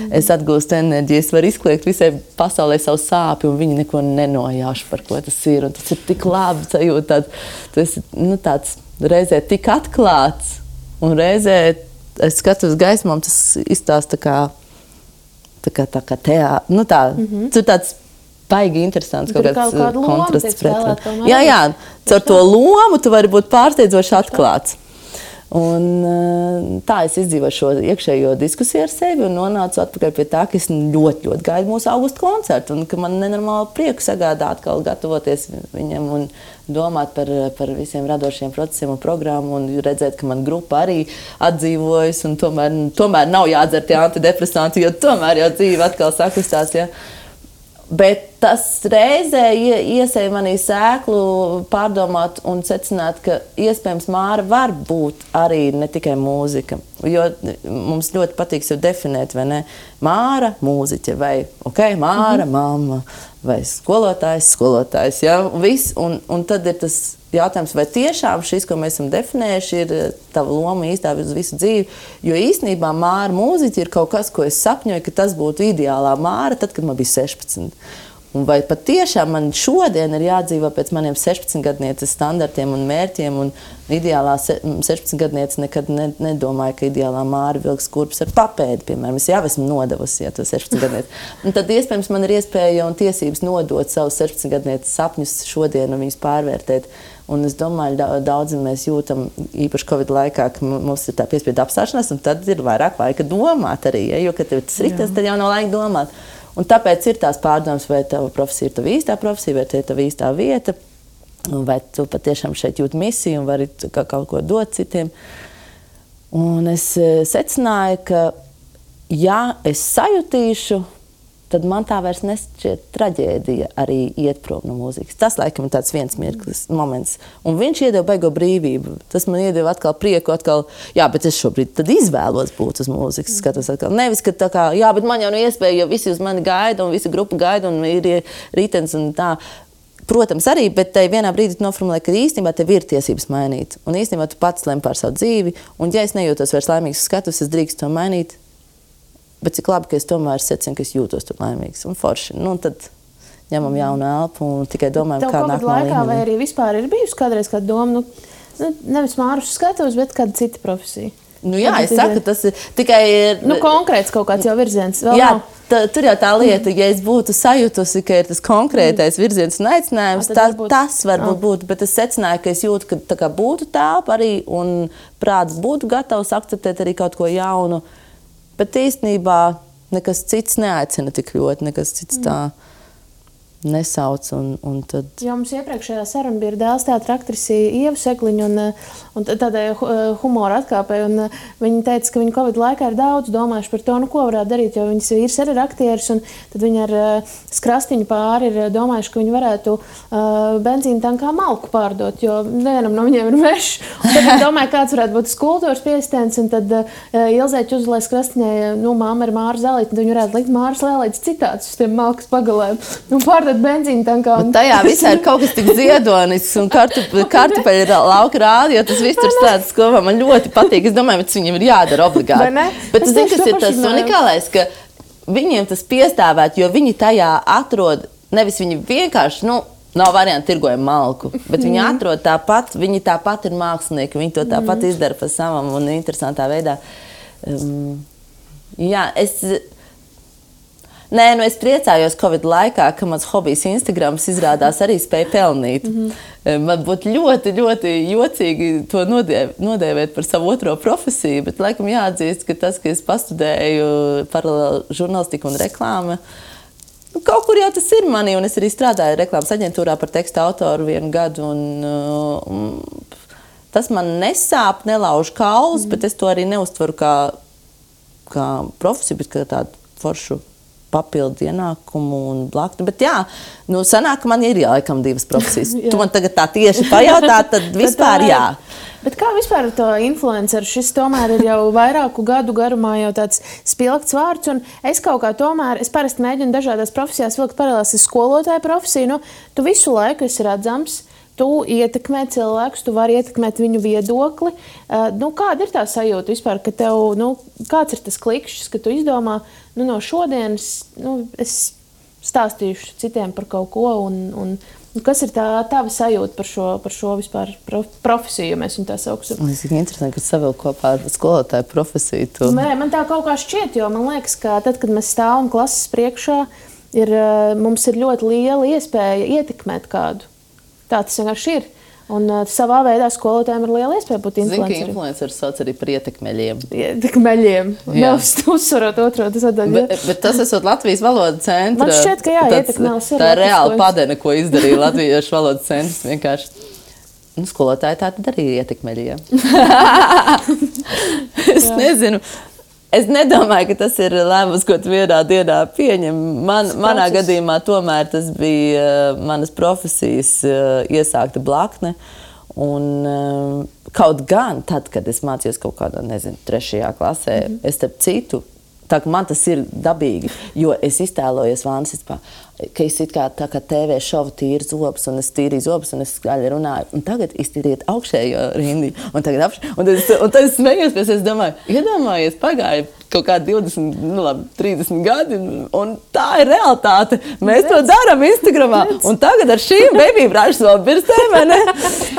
es atgūstu enerģiju, es varu izkliegt visai pasaulē savu sāpi un viņi neko nenojauš, par ko tas ir. Un tas ir tik labi sajūta, tu esi tāds reizē tik atklāts un reizē es skatos gaismām, tas izstāsta tā kā teātris. Tur tāds baigi interesants kaut kāds kontrasts pret. Jā, caur to lomu tu vari būt pārsteidzoši atklāts. Un tā es izdzīvoju šo iekšējo diskusiju ar sevi un nonācu atpakaļ pie tā, ka es ļoti, ļoti gaidu mūsu augusta koncertu un ka man nenormāli prieku sagādā atkal gatavoties viņam un domāt par visiem radošiem procesiem un programmu un redzēt, ka man grupa arī atdzīvojas un tomēr nav jādzer tie antidepresanti, jo tomēr jau dzīve atkal sakustās, ja. Bet tas reizē iesēja manī sēklu pārdomāt un secināt, ka iespējams Māra var būt arī ne tikai mūzika. Jo mums ļoti patīk sev definēt, vai ne? Māra, mūziķe, vai Māra, mamma, vai skolotājs, ja? Un tad ir tas jautājums, vai tiešām šis, ko mēs esam definējuši, ir tava loma īstā uz visu dzīvi. Jo īstenībā Māra mūziķi ir kaut kas, ko es sapņoju, ka tas būtu ideālā Māra, tad, kad man bija 16. Un vai patiešām man šodien ir jādzīvo pēc maniem 16-gadnieces standartiem un mērķiem, un ideālā 16-gadniece nekad nedomāja, ka ideālā Māra vilks kurpes ar papēdi, piemēram. Es jau esmu nodevusi, ja to 16-gadnieci. Un tad iespējams man ir iespēja un tiesības nodot savus 16-gadnieces sapņus šodien un viņus pārvērtēt. Un es domāju, daudzi mēs jūtam, īpaši Covid laikā, ka mums ir tā piespiedu apstāšanās, un tad ir vairāk laika domāt arī, ja? Jo, kad tev tas ritas, tad jau nav laika domāt. Un tāpēc ir tās pārdomas, vai tava profesija ir tava īstā profesija, vai te ir tava īstā vieta, vai tu patiešām šeit jūt misiju un vari kaut ko dot citiem. Un es secināju, ka ja es sajutīšu, tad man tā vairs nešķiet traģēdija arī iet prom no mūzikas. Tas, laikam, ir tāds viens mirklis, moments. Un viņš iedeva baigo brīvību. Tas man iedeva atkal prieku, jā, bet es šobrīd tad izvēlos būt uz mūzikas. Skatos atkal. Nevis, ka tā kā, jā, bet man jau nav iespēja, jo visi uz mani gaida, un visa grupa gaida, un ir rītens un tā. Protams, arī, bet tai vienā brīdī noformulē, ka īstenībā tev ir tiesības mainīt. Un īstenībā tu pats lem par savu dzīvi, un ja es nejūtos vairs laimīgs skatus, es drīkstu to mainīt. Bet cik labi, ka es tomēr secinu, ka es jūtos tur laimīgs un forši. Tad ņemam jaunu elpu un tikai domājam, kā nākamā līmenī. Tev vai arī vispār ir bijusi kādreiz kāda doma, nevis Māru skatos, bet kāda cita profesija? Jā, es saku, tas ir tikai... konkrēts kaut kāds jau virziens. Jā, tur jau tā lieta, ja es būtu sajutusi, ka ir tas konkrētais virziens un aicinājums, tas varbūt būtu, bet es secināju, ka es jūtu, ka tā kā būtu tāpa arī un prāts būtu gatavs akceptēt arī kaut ko jaunu. Bet īstenībā nekas cits neaicina tik ļoti, nekas cits tā nesauc. Un tad... Jo mums iepriekšējā saruna bija dēls teātra aktrise Ieva Sekliņa un tādai humora atkāpei. Un viņa teica, ka viņa Covid laikā ir daudz domājuši par to, ko varētu darīt, jo viņas vīrs arī ir aktieris. Un tad viņi ar skrastiņu pāri ir domājuši, ka viņi varētu benzīna tankā malku pārdot, jo nevienam no viņiem ir mežs. Un tad viņi domāja, kāds varētu būt kultūras piesitens. Un tad Ilzēķi uzlēja skrastiņai, māma ir Māra Zēlīte, un viņi varētu likt Māras Lēlītes citātus uz tiem malkas pagalēm. Un pārdot benzīnu tankā. Un tajā visā ir kaut kas tik ziedonisks un kartupeļu lauka rādi, jo tas viss tur stāsts kopā. Man ļoti patīk. Es domāju, ka viņiem ir jādara obligāti. Bet tu zini, kas ir tas unikālais, ka viņiem tas piestāvēt, jo viņi tajā atrod, nevis viņi vienkārši, nav varianti tirgojam malku, bet viņi atrod tāpat, viņi tāpat ir mākslinieki, viņi to tāpat izdara pa savam un interesantā veidā. Jā, Nē, nu es priecājos Covid laikā, ka mans hobijs Instagrams izrādās arī spēja pelnīt. Man būtu ļoti, ļoti jocīgi to nodēvēt par savu otro profesiju, bet laikam jāatzīst, ka tas, ka es pastudēju paralēli žurnālistiku un reklāmu, kaut kur jau tas ir manī, un es arī strādāju reklāmas aģentūrā par teksta autoru 1 gadu, un tas man nesāp, nelauž kaulus, bet es to arī neuztveru kā profesiju, bet kā tādu foršu papildu ienākumu un blaktu. Bet jā, nu sanāk, ka man ir laikam 2 profesijas. Tu man tagad tā tieši pajautā, tad vispār jā. Bet kā vispār ar to influenceru? Šis tomēr ir jau vairāku gadu garumā jau tāds spilgts vārds, un es kaut kā tomēr, es parasti mēģinu dažādās profesijās vilkt paralēlas ar skolotāju profesiju, nu, tu visu laiku esi redzams, tu ietekmē cilvēkus, tu vari ietekmēt viņu viedokli. Kāda ir tā sajūta vispār, ka tev, kāds ir tas klikšķis, ka tu izdomā, no šodienas, es stāstīšu citiem par kaut ko, un kas ir tā tava sajūta par šo vispār profesiju, ja mēs viņu tā sauksim? Es ir interesanti, ka savilk kopā ar skolotāju profesiju. Tu... Nē, man tā kaut kā šķiet, jo man liekas, ka tad, kad mēs stāvam klases priekšā, mums ir ļoti liela iespēja ietekmēt kādu. Tā tas vienkārši ir. Un savā veidā skolotājiem ir liela iespēja būt influenceriem. Zini, ka influenceri sauc arī par ietekmeļiem. Ietekmeļiem. Neuzsvarot otro. Bet tas esot Latvijas valodas centra. Man šķiet, ka jā, ietekmelis ir. Tā ir reāla padene, ko izdarīja Latviešu valodas centrs vienkārši. Skolotāji tā tad arī ir ietekmeļi, jā. Es nezinu. Es nedomāju, ka tas ir lēmums, ko tu vienā dienā pieņem. Manā gadījumā tomēr tas bija manas profesijas iesākta blakne. Un kaut gan tad, kad es mācījos kaut kādā, 3. klasē, es starp citu, tā ka man tas ir dabīgi, jo es iztēlojos Vānsistpā, ka es it kā tā kā TV šovu tīru zobus, un es tīrīju zobus, un es skaļi runāju, un tagad iztīriet augšējo rindi, un tagad un tad es smējos, pēc es domāju, iedomājies, pagāja kaut kā 30 gadi, un tā ir realitāte. Mēs to darām Instagramā, un tagad ar šīm baby brāžas vēl birstēm, vai ne?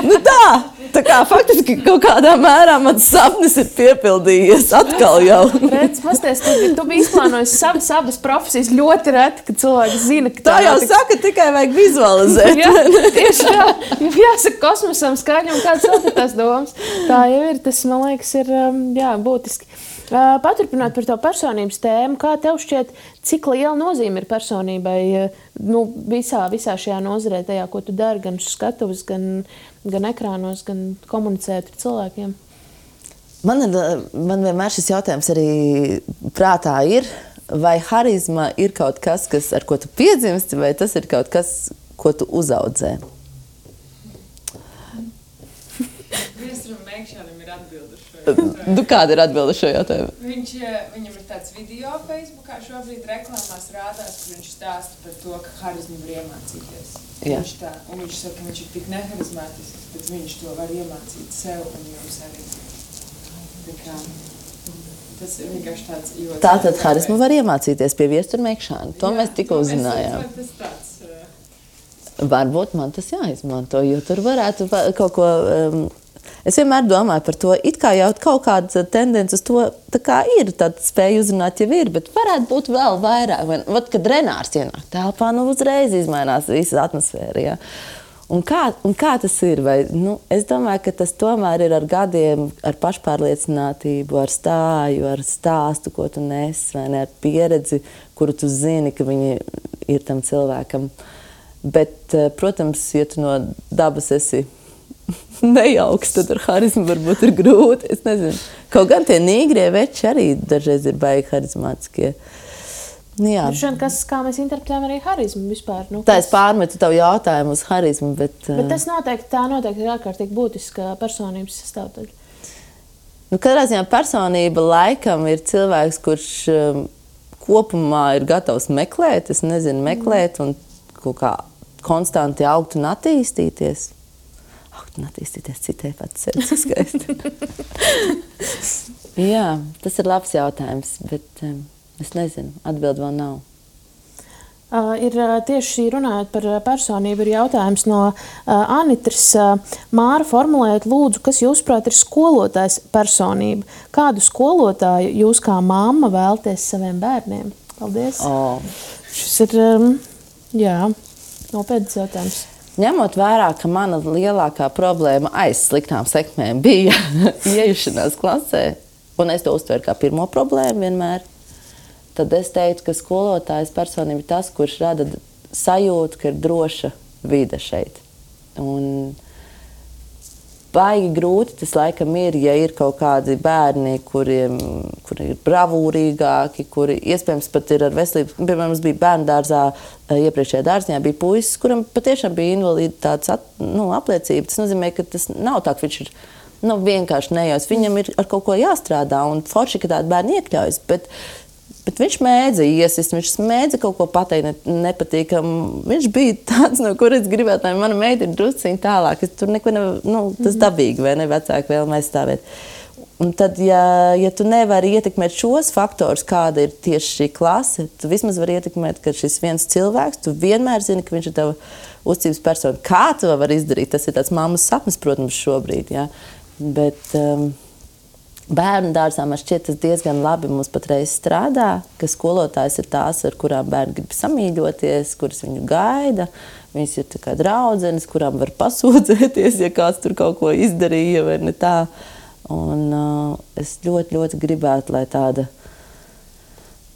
Nu tā kā faktiski kaut kādā mērā mans sapnis ir piepildījies atkal jau. Redz, pasties, tu biji izplānojis abas profesijas ļoti reti, kad cilvēki zina, ka tā jau saka, tikai vajag vizualizēt. Jā, tieši tā. Jāsaka kosmosam skaņa un kāds vēl tās domas. Tā jau ir, tas, man liekas, ir būtiski. Paturpināt par to personības tēmu, kā tev šķiet, cik liela nozīme ir personībai visā šajā nozarē, tajā, ko tu dari, gan skatuves, gan ekrānos, gan komunicēt ar cilvēkiem? Man vienmēr šis jautājums arī prātā ir, vai harizma ir kaut kas, ar ko tu piedzimsti, vai tas ir kaut kas, ko tu uzaudzē? Viesuram Mēkšanam ir atbilde šo jautājumu. Kāda ir atbilde šo jautājumu? Viņam ir tāds video Facebookā šobrīd reklamās rādās, kur viņš stāsta par to, ka harizmu var iemācīties. Viņš saka, ka viņš ir tik neharizmātisks, bet viņš to var iemācīt sev un jums arī. Tas ir vienkārši tāds... Tātad harizmu var iemācīties pie Viestura Mēkšana. To mēs tikko uzzinājām. Varbūt man tas jāizmanto, jo tur varētu kaut ko... Es vienmēr domāju par to, it kā jau kaut kāda tendence uz to, tā kā ir, tāda spēja uzrunāt jau ir, bet varētu būt vēl vairāk. Vat, kad Renārs ienāk telpā, uzreiz izmainās visa atmosfēra, jā. Un kā tas ir? Es domāju, ka tas tomēr ir ar gadiem, ar pašpārliecinātību, ar stāju, ar stāstu, ko tu nes, vai ne, ar pieredzi, kuru tu zini, ka viņi ir tam cilvēkam. Bet, protams, ja tu no dabas esi nejauks, tad ar harizmu varbūt ir grūti. Es nezinu. Kaut gan tie nīgrie veči arī dažreiz ir baigi harizmātiskie. Jā. Kā mēs interpretējam arī harizmu vispār? Tā es pārmetu tavu jautājumu uz harizmu, bet... Bet tas noteikti ir ārkārtīgi būtiska personības sastāvdaļa. Katrā ziņā personība laikam ir cilvēks, kurš kopumā ir gatavs meklēt, meklēt un kaut kā konstanti augt un attīstīties. Citai pats sevi skaisti. Jā, tas ir labs jautājums, bet es nezinu, atbildi vēl nav. Ir tieši runājot par personību, ir jautājums no Anitras. Māra, formulējot lūdzu, kas jūsuprāt ir skolotājs personība? Kādu skolotāju jūs kā mamma vēlaties saviem bērniem? Paldies. Oh. Šis ir, nopietns jautājums. Ņemot vērā, ka mana lielākā problēma aiz sliktām sekmēm bija iejušanās klasē, un es to uztveru kā pirmo problēmu vienmēr, tad es teiktu, ka skolotājs personība ir tas, kurš rada sajūtu, ka ir droša vide šeit. Un baigi grūti tas laikam ir, ja ir kaut kādi bērni, kuri ir bravūrīgāki, kuri iespējams pat ir ar veselību. Piemēram, mums bija bērnu dārzā, iepriekšējā dārziņā bija puisis, kuram patiešām bija invaliditātes apliecība. Tas nozīmē, ka tas nav tā, ka viņš ir vienkārši nejaus. Viņam ir ar kaut ko jāstrādā, un forši, ka tādi bērni iekļaujas. Bet viņš mēdza iesist, viņš mēdza kaut ko pateikt nepatīkam. Viņš bija tāds, no kuras gribētu, lai mana meita ir drusciņi tālāk. Tur neko tas dabīgi, vai ne, vecāki vēlme aizstāvēt. Un tad, ja tu nevari ietekmēt šos faktorus, kāda ir tieši šī klase, tu vismaz vari ietekmēt, ka šis viens cilvēks, tu vienmēr zini, ka viņš ir tava uzticības persona. Kā tu vari izdarīt? Tas ir tāds mammas sapnis, protams, šobrīd, jā. Bet bērnu dārzā man šķiet tas diezgan labi mums patreiz strādā, ka skolotājs ir tās, ar kurām bērni grib samīļoties, kuras viņu gaida. Viņas ir tā kā draudzenes, kurām var pasūdzēties, ja kāds tur kaut ko izdarīja vai ne tā. Un es ļoti, ļoti gribētu, lai tāda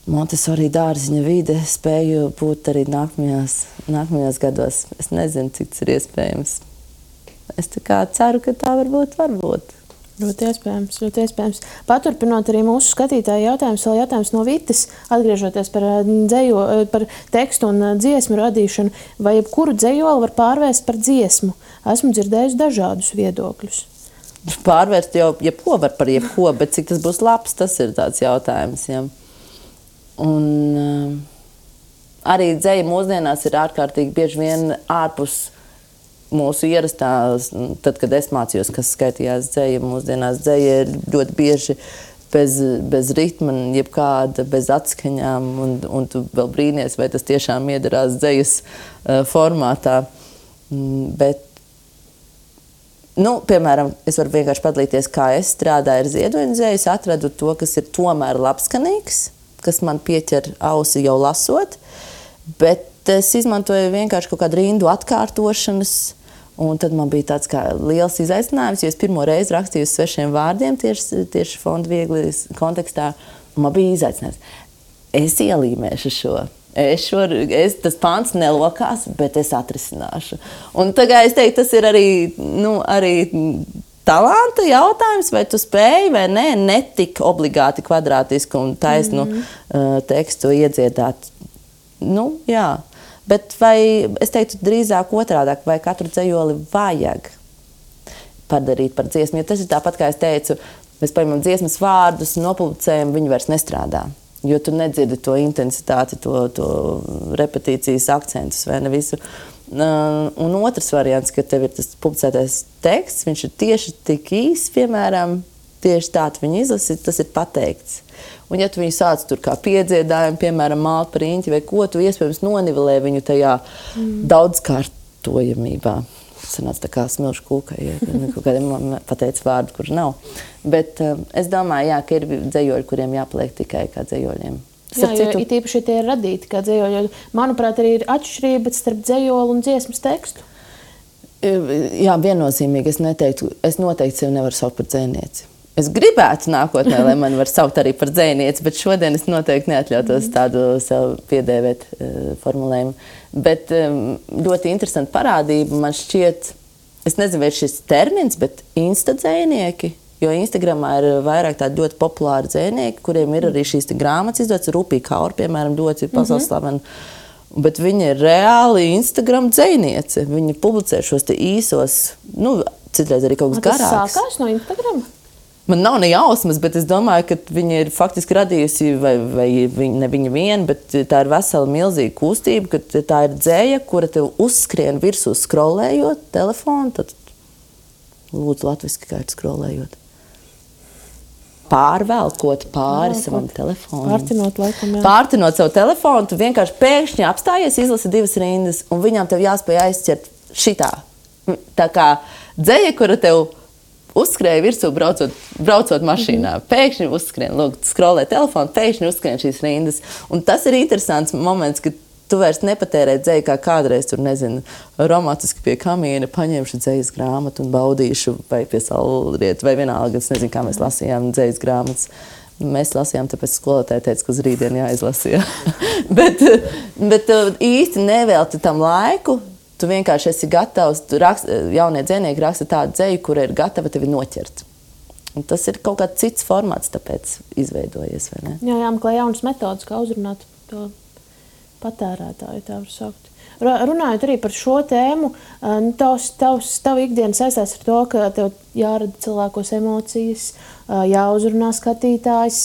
Montessori dārziņa vide spēju būt arī nākamajos gados. Es nezinu, cik tas ir iespējams. Es tā kā ceru, ka tā varbūt. Ļoti iespējams. Paturpinot arī mūsu skatītāju jautājumus, vēl jautājums no Vitas, atgriežoties par tekstu un dziesmu radīšanu, vai jebkuru dzejoli var pārvērst par dziesmu? Esmu dzirdējusi dažādus viedokļus. Pārvērst jau jebko var par jebko, bet cik tas būs labs, tas ir tāds jautājums. Ja. Un arī dzeja mūsdienās ir ārkārtīgi bieži vien ārpus mūsu ierastās, tad, kad es mācījos, kas skaitījās dzeja, mūsdienās dzeja ir ļoti bieži bez ritma, jebkāda, bez atskaņām, un tu vēl brīnies, vai tas tiešām iedarās dzejas formātā. Bet, piemēram, es varu vienkārši padalīties, kā es strādāju ar ziedoņu dzeju, es atradu to, kas ir tomēr labskanīgs, kas man pieķer ausi jau lasot, bet es izmantoju vienkārši kaut kādu rindu atkārtošanas. Un tad man bija tāds kā liels izaicinājums, jo es pirmo reizi rakstīju uz svešiem vārdiem tieši Fonda Viegli kontekstā. Un man bija izaicinājums. Es ielīmēšu šo. Tas pants nelokās, bet es atrisināšu. Un tagad es teiktu, tas ir arī talanta jautājums, vai tu spēji vai nē, netik obligāti kvadrātisku un taisnu tekstu iedziedāt. Jā. Bet vai, es teiktu, drīzāk otrādāk, vai katru dzejoli vajag padarīt par dziesmu? Jo tas ir tāpat, kā es teicu, mēs paņemam dziesmas vārdus, nopublicējam, viņi vairs nestrādā. Jo tu nedzirdi to intensitāti, to repetīcijas akcentus vai ne visu. Un otrs variants, ka tev ir tas publicētais teksts, viņš ir tieši tik īs, piemēram, tieši tā tu viņu izlasi, tas ir pateikts. Un ja tu viņu sāc tur kā piedziedājumu, piemēram, malt par riņķi vai ko, tu iespējams nonivelē viņu tajā daudzkārtojamībā. Sanāca tā kā smilšu kūkai, ja kaut kādiem pateica vārdu, kur nav. Bet es domāju, jā, ka ir dzejoļi, kuriem jāpaliek tikai kā dzejoļiem. Jā, jo it īpaši tie ir radīti kā dzejoļi. Manuprāt, arī ir atšķirība starp dzejoli un dziesmas tekstu. Jā, viennozīmīgi es noteikti sevi nevaru saukt par dzejnieci. Es gribētu nākotnē, lai mani var saukt arī par dzejnieci, bet šodien es noteikti neatļautos tādu sev piedēvēt formulējumu. Bet ļoti interesanta parādība man šķiet, es nezinu, vai šis termins, bet instadzejnieki, jo Instagramā ir vairāk tādi ļoti populāri dzejnieki, kuriem ir arī šīs grāmatas izdotas, Rupī Kaur, piemēram, ļoti pasaules slavena. Bet viņa ir reāli Instagram dzejniece. Viņa publicē šos te īsos, citreiz arī kaut kas garāks. Tas sākās no Instagrama? Man nav ne jausmas, bet es domāju, ka viņa ir faktiski radījusi, vai ne viņa viena, bet tā ir vesela milzīga kustība, ka tā ir dzeja, kura tev uzskrien virsū skrolējot telefonu, tad lūdzu latviski, kā ir skrolējot. Pārvelkot pāri savam telefonam. Pārtinot laikam, jā. Pārtinot savu telefonu, tu vienkārši pēkšņi apstājies, izlasi 2 rindas, un viņām tev jāspēj aizķert šitā. Tā kā dzeja, kura tev uzskrēja virsū braucot mašīnā. Pēkšņi uzskrien, lūk, skrolē telefonu, pēkšņi uzskrien šīs rindas. Un tas ir interesants moments, kad tu vairs nepatērē dzēju, kā kādreiz tur, nezinu, romantiski pie kamīna paņemšu dzējas grāmatu un baudīšu, vai pie saulrieta, vai vienalga, es nezinu, kā mēs lasījām dzējas grāmatas. Mēs lasījām, tāpēc skolotāji teica, ka uz rītdienu jāizlasīja. bet īsti nevelti tam laiku, tu vienkārši esi gatavs, jaunie dzēnieki raksta tādu dzēju, kura ir gatava tevi noķert. Un tas ir kaut kāds cits formāts, tāpēc izveidojies, vai ne? Jā, meklē jaunas metodas, kā uzrunāt to patērētāju, tā var saukt. Runājot arī par šo tēmu, tavu ikdiena saistās ar to, ka tev jārada cilvēkos emocijas, jāuzrunā skatītājs,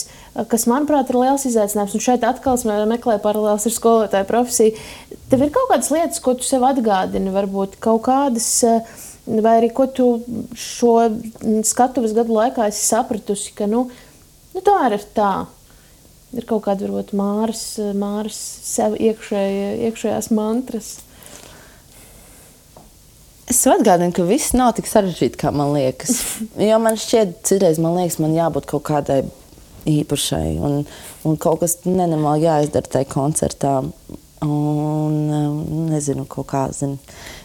kas, manuprāt, ir liels izaicinājums. Un šeit atkal meklē paralēls ar skolotāju profesiju. Tev ir kaut kādas lietas, ko tu sev atgādini, varbūt kaut kādas, vai arī ko tu šo skatuves gadu laikā esi sapratusi, ka, tomēr ir tā. Ir kaut kāda, varbūt, Māras sev iekšējās mantras. Es atgādinu, ka viss nav tik sarežģīti, kā man liekas. Jo man šķiet, citreiz man liekas, man jābūt kaut kādai īpašai. Un kaut kas nenormāli jāizdara tajā koncertā. Un nezinu, kaut kā zinu.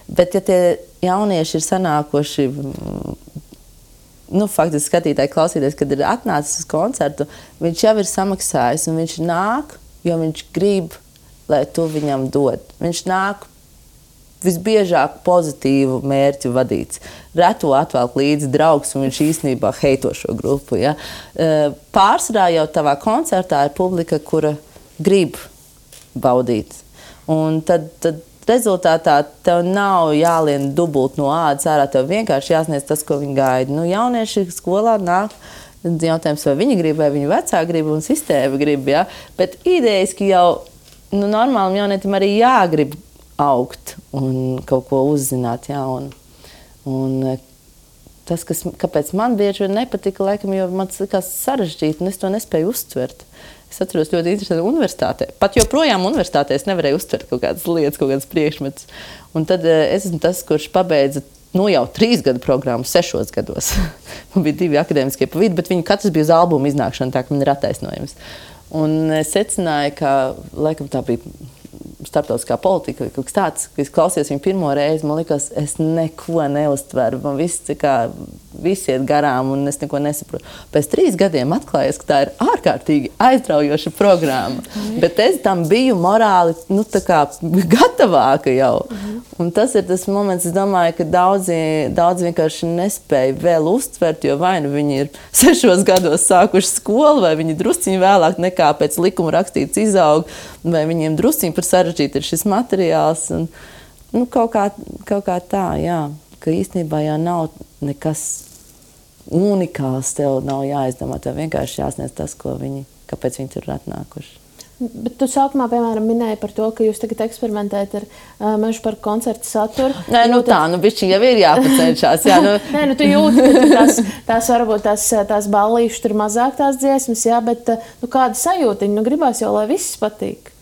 Bet ja tie jaunieši ir sanākoši, faktiski skatītāji klausīties, kad ir atnācis uz koncertu, viņš jau ir samaksājis un viņš nāk, jo viņš grib, lai tu viņam dod. Viņš nāk visbiežāk pozitīvu mērķu vadīts. Reto atvelk līdzi draugs un viņš īstenībā heito šo grupu. Ja? Pārsvarā jau tavā koncertā ir publika, kura grib baudīt. Un tad rezultātā tev nav jālien dubult no ādas ārā, tev vienkārši jāsniedz tas, ko viņi gaida. Jaunieši skolā nāk, jautājums, vai viņi grib, vai viņu vecāki grib un sistēma grib, ja? Bet idejiski jau normālam jaunietim arī jāgrib augt un kaut ko uzzināt jaunu. Un tas, kāpēc man bieži vien nepatika, laikam, jo man tas likās sarežģīti un es to nespēju uztvert. Es atceros ļoti interesanti universitātē. Pat joprojām universitātē es nevarēju uztvert kaut kādas lietas, kaut kādas priekšmetus. Un tad es esmu tas, kurš pabeidza jau 3 gadu programmu 6 gados. Man bija 2 akadēmiskie pa vidu, bet viņi katrs bija uz albumu iznākšana, tā ka man ir attaisnojums. Un es secināju, ka laikam tā bija starptautiskā politika vai kaut kas tāds, ka es klausījos viņu pirmo reizi, man likās, es neko neuztveru, man viss iet garām un es neko nesaprotu. Pēc 3 gadiem atklājās, ka tā ir ārkārtīgi aizraujoša programma, bet es tam biju morāli, tā kā gatavāka jau. Un tas ir tas moments, es domāju, ka daudzi vienkārši nespēja vēl uztvert, jo vai viņi ir 6 gados sākuši skolu, vai viņi drusciņi vēlāk nekā pēc likuma rakstīts izaug, vai viņiem drusciņi par sarežģīti ir šis materiāls. Un, kaut kā tā, jā, ka īstenībā jau nav nekas unikāls, tev nav jāizdomā, tev vienkārši jāsniedz tas, kāpēc viņi tur ir atnākuši. Bet tu sākumā, piemēram, minēji par to, ka jūs tagad eksperimentējat ar Mežu parka koncertu saturu. Nē, bišķiņ jau ir jāpacenšās. Jā, Nē, tu jūti, ka varbūt tās ballīšas tur mazāk tās dziesmas, jā, bet kāda sajūtiņa, gribās jau, lai viss patīk.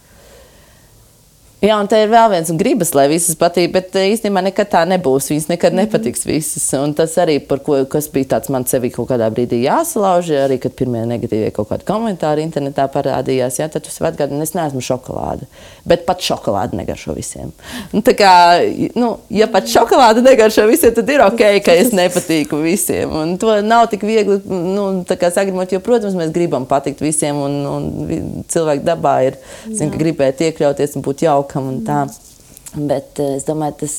Jā, un te ir vēl viens, un gribas, lai visas patīk, bet īstenībā nekad tā nebūs. Viņas nekad nepatiks visas. Un tas arī, kas bija tāds man sevi kaut kādā brīdī jāsalauž, arī, kad pirmie negatīvie kaut kādi komentāri internetā parādījās, jā, tad tu sev atgādini, es neesmu šokolāde. Bet pat šokolāde negaršo visiem. Un tā kā, ja pat šokolāde negaršo visiem, tad ir ok, ka es nepatīku visiem. Un to nav tik viegli, tā kā sagrimot, jo, protams, mēs gribam patikt visiem, un cilvēku dabā ir, ka gribēt iekļauties un būt jauki. Un tā. Bet es domāju, tas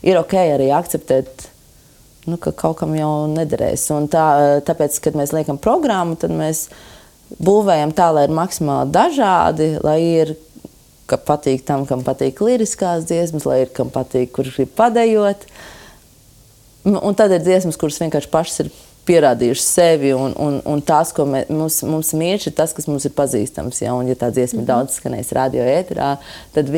ir ok arī akceptēt, ka kaut kam jau nederēs. Un tāpēc, kad mēs liekam programmu, tad mēs būvējam tā, lai ir maksimāli dažādi, lai ir, ka patīk tam, kam patīk liriskās dziesmas, lai ir, kam patīk, kurš grib padejot. Un tad ir dziesmas, kuras vienkārši pašas ir pierādījuši sevi, un tās, ko mums mīļš, ir tas, kas mums ir pazīstams. Ja? Un, ja tā dziesma daudz skanēs radio ēterā, tad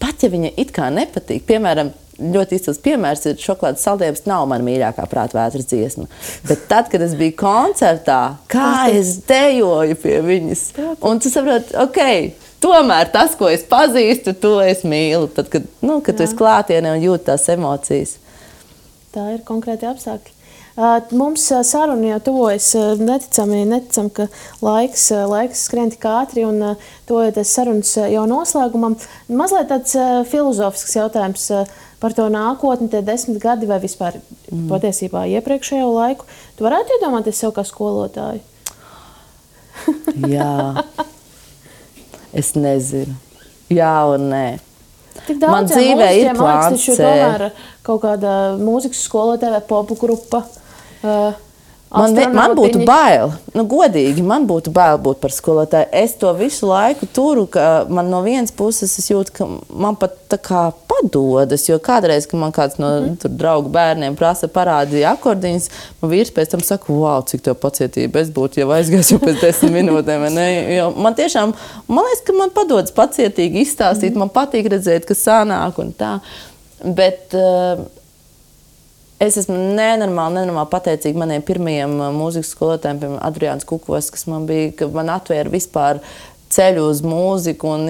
pat ja viņa it kā nepatīk, piemēram, ļoti izcils piemērs ir Šokolādes saldējums nav mana mīļākā prātvētras dziesma. Bet tad, kad es biju koncertā, kā es dejoju pie viņas. Un tu saproti, ok, tomēr tas, ko es pazīstu, to es mīlu. Tad, kad tu esi klātienē un jūti tās emocijas. Tā ir konkrēti apstākļi. Mums saruna jau tuvojas neticam, ka laiks skrien tik ātri un tuvojoties sarunas jau noslēgumam. Mazliet tāds filozofisks jautājums par to nākotni, tie 10 gadi vai vispār patiesībā iepriekšējo laiku. Tu varētu iedomāties sev kā skolotāju? Jā. Es nezinu. Jā un nē. Tik daudz dzīvē ir plāns C. Tomēr kaut kāda mūzikas skolotāja vai popu grupa. Man būtu bail, godīgi, man būtu bail būt par skolotāju. Es to visu laiku turu, ka man no vienas puses es jūtu, ka man pat tā kā padodas, jo kādreiz, kad man kāds no draugu bērniem prasa parādīja akordiņus, man vīrs pēc tam saka, wow, cik tev pacietība, es būtu jau aizgājis jau pēc 10 minūtēm. Jo man tiešām, man liekas, ka man padodas pacietīgi izstāstīt, man patīk redzēt, ka sanāk un tā, bet es esmu nenormāli pateicīga maniem pirmajiem mūzikas skolotājiem, piemēram, Adriāns Kukos, kas man bija, ka man atvēra vispār ceļu uz mūziku un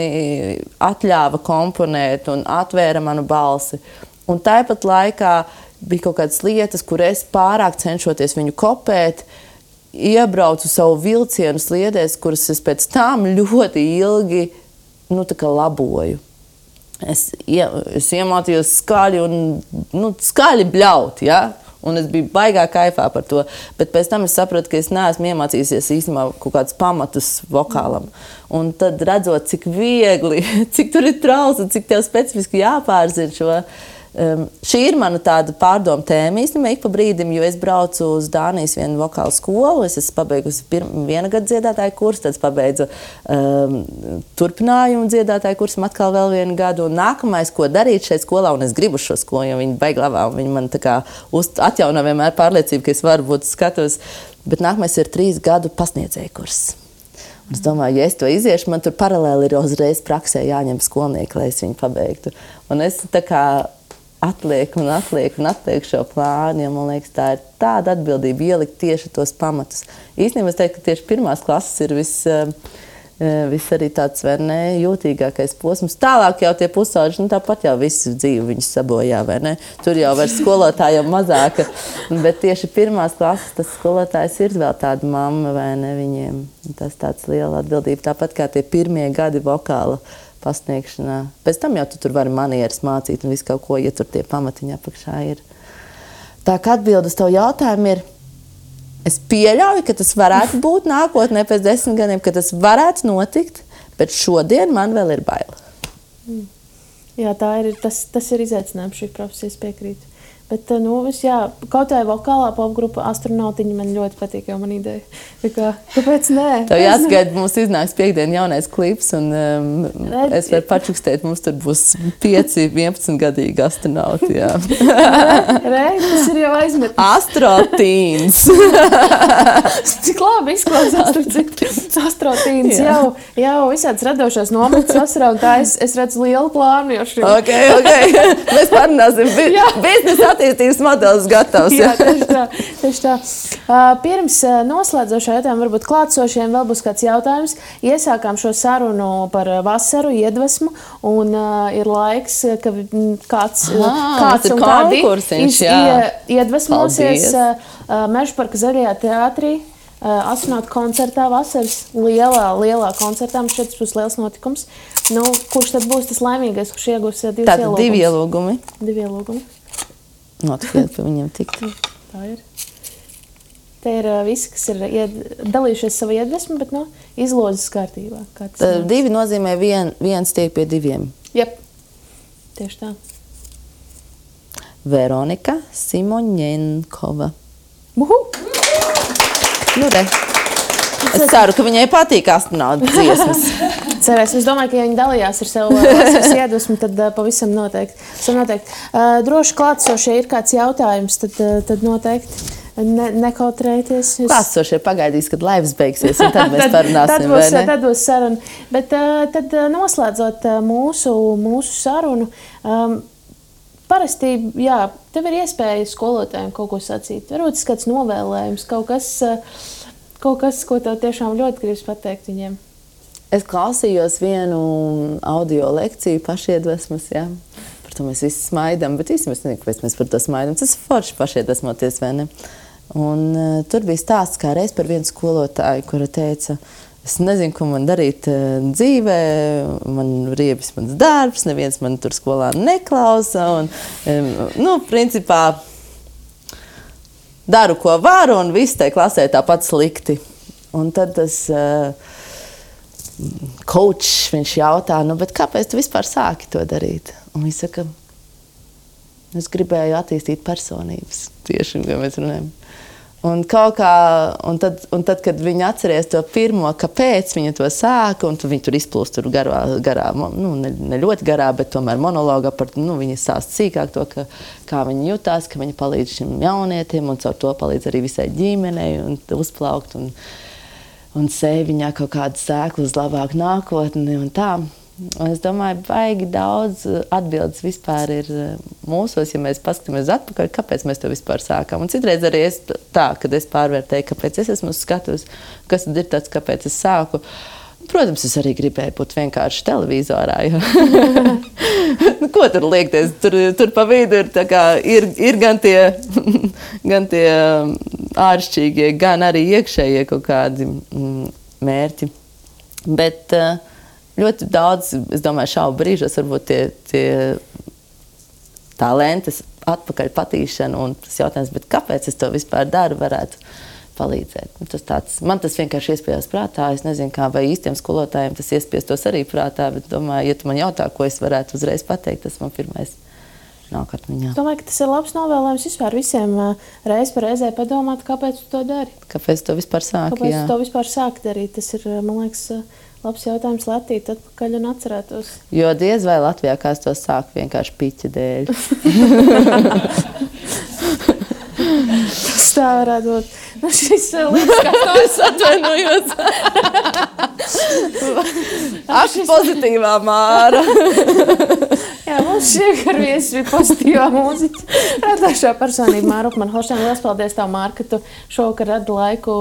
atļāva komponēt un atvēra manu balsi. Un tāpat laikā bija kaut kādas lietas, kur es pārāk cenšoties viņu kopēt, iebraucu savu vilcienu sliedēs, kuras es pēc tam ļoti ilgi laboju. Es iemācījos skaļi un skaļi bļaut, ja? Un es biju baigā kaifā par to, bet pēc tam es sapratu, ka es neesmu iemācījusies īstenībā kaut kādus pamatus vokālam. Un tad redzot, cik viegli, cik tur ir trauls un cik tev specifiski jāpārzina šo. Šī ir mana tāda pārdoma tēma īstenībā ik pa brīdim, jo es braucu uz Dānijas vienu vokālu skolu, es esmu pabeigusi viena gada dziedātāju kursu, tad pabeidzu turpinājumu dziedātāju kursu, atkal vēl vienu gadu, un nākamais, ko darīt šeit skolā, un es gribu šo skolu, jo viņi baigi labā, un viņi man tā kā atjauno vienmēr pārliecību, ka es varu būt skatos, bet nākamais ir 3 gadu pasniedzēju kurs. Un es domāju, ja es to iziešu, man tur paralēli ir uzreiz praksē jāņem skolnieki, lai es viņu pabeigtu. Un es tā kā atlieku šo plānu, jo man liekas, tā ir tāda atbildība ielikt tieši tos pamatus. Īstenībā es teiktu, ka tieši pirmās klases ir viss arī tāds, vai ne, jūtīgākais posms. Tālāk jau tie pusauģi, tāpat jau visu dzīvi viņus sabojā, vai ne? Tur jau vairs skolotājiem mazāka, bet tieši pirmās klases tas skolotājs ir vēl tāda mamma, vai ne, viņiem. Tas tāds liela atbildība, tāpat kā tie pirmie gadi vokāla pasniegšanā. Pēc tam jau tu tur vari manieres mācīt un visu kaut ko, ja tur tie pamatiņi apakšā ir. Tā kā atbilde uz tavu jautājumu ir, es pieļauju, ka tas varētu būt nākotnē pēc 10 gadiem, ka tas varētu notikt, bet šodien man vēl ir baila. Jā, tas ir izaicinājums šī profesijas piekrīt. Bet, kaut vai vokālā popgrupa Astronautiņi man ļoti patīk, jau man ideja. Kāpēc nē? Tev jāsagaida, mums iznāks piekdien jaunais klips, un es varu pačukstēt, mums tur būs 5-11 gadīgi astronauti, jā. Tas ir jau aizmetnis. Astrotīns. Cik labi izklausās Astrotīns. Jau visāds radošās nometnes vasarā, un tā es redzu lielu plānu jau šim. Ok. Mēs parunāsim. Biznesa attīstības modelis gatavs. Jā, tieši tā. Pirms noslēdzošā jautājuma varbūt klātsošiem vēl būs kāds jautājums. Iesākām šo sarunu par vasaru, iedvesmu, un ir laiks, ka kāds un kādi iedvesmosies Mežaparka Zaļajā teātrī. Astronautu koncertā vasaras lielā koncertā. Mums šeit būs liels notikums. Kurš tad būs tas laimīgais, kurš iegūs 2 ielūgumus? 2 ielūgumi. 2 ielūgumi. Notikiet pie viņiem tikt. Tā ir. Te ir visi, kas ir dalījušies savu iedvesmu, bet izlozes kārtībā. 2 nozīmē viens tiek pie 2. Jep. Tieši tā. Veronika Simoņenkova. Es ceru, ka viņai patīk astronautu dziesmas. Cerēsim. Es domāju, ka, ja viņi dalījās ar savu vasaras iedvesmu, tad pavisam noteikti. Droši klātsošie ir kāds jautājums, tad noteikti nekautrējieties. Klātsošie pagaidīs, kad laivas beigsies, un tad mēs parunāsim, vai ne? Tad būs saruna. Bet tad noslēdzot mūsu sarunu, parasti, tev ir iespēja skolotājiem kaut ko sacīt. Varbūt tas kāds novēlējums, kaut kas, ko tev tiešām ļoti gribas pateikt viņiem. Es klausījos vienu audio lekciju pašiedvesmas, jā. Par to mēs visi smaidam, bet īstenībā es nezinu, kāpēc mēs par to smaidam. Tas ir forši pašiedvesmoties, vai ne? Un tur bija stāsts kā reiz par vienu skolotāju, kura teica, es nezinu, ko man darīt dzīvē, man riebis mans darbs, neviens man tur skolā neklausa. Un, principā, daru, ko varu, un viss tai klasē tāpat slikti. Un tad tas coach, viņš jautā, bet kāpēc tu vispār sāki to darīt? Un viņš saka, es gribēju attīstīt personības, tieši, ko mēs runājam. Un tad, kad viņi atceries to pirmo, kāpēc viņa to sāka, un viņi tur izplūst tur garā, ne ļoti garā, bet tomēr monologā par, viņi stāsta sīkāk to, kā viņi jutās, ka viņi palīdz šim jaunietim, un caur to palīdz arī visai ģimenei, un uzplaukt, un sēj viņā kaut kādu sēklu uz labāku nākotni, un tā. Un es domāju, baigi daudz atbildes vispār ir mūsos, ja mēs paskatāmies atpakaļ, kāpēc mēs to vispār sākām. Un citreiz arī kad es pārvērtēju, kāpēc es esmu skatus, kas tad ir tāds, kāpēc es sāku. Protams, es arī gribēju būt vienkārši televizorā. Ko tur liekties? Tur pa vidu ir gan tie āršķirīgie, gan arī iekšējie kaut kādi mērķi. Bet ļoti daudz, es domāju, šaubu brīžos varbūt tie talantes atpakaļ patīšana un tas jautājums, bet kāpēc es to vispār daru, varētu palīdzēt. Man tas vienkārši iespējās prātā. Es nezinu, kā vai īstiem skolotājiem tas iespiestos arī prātā, bet domāju, ja tu man jautā, ko es varētu uzreiz pateikt, tas man pirmais nāk atmiņā. Es domāju, ka tas ir labs novēlējums vispār visiem reiz par reizē padomāt, kāpēc tu to dari. Kāpēc tu to vispār sāki, Kāpēc tu to vispār sāki darīt? Tas ir, man liekas, labs jautājums Latvīt atpakaļ un atcerētos. Jo diez vai Latvijā kāds to sāk vienkārši piķa dēļ. Tas tā varētu būt. Šis liekas, kā to es atvainojos. Ak, pozitīvā Māra. Jā, mums šiegar viesis bija pozitīvā mūziķa. Radošā personība Māra Upmann-Holšteina. Lielas paldies tev, Māra, ka tu šovakar radi laiku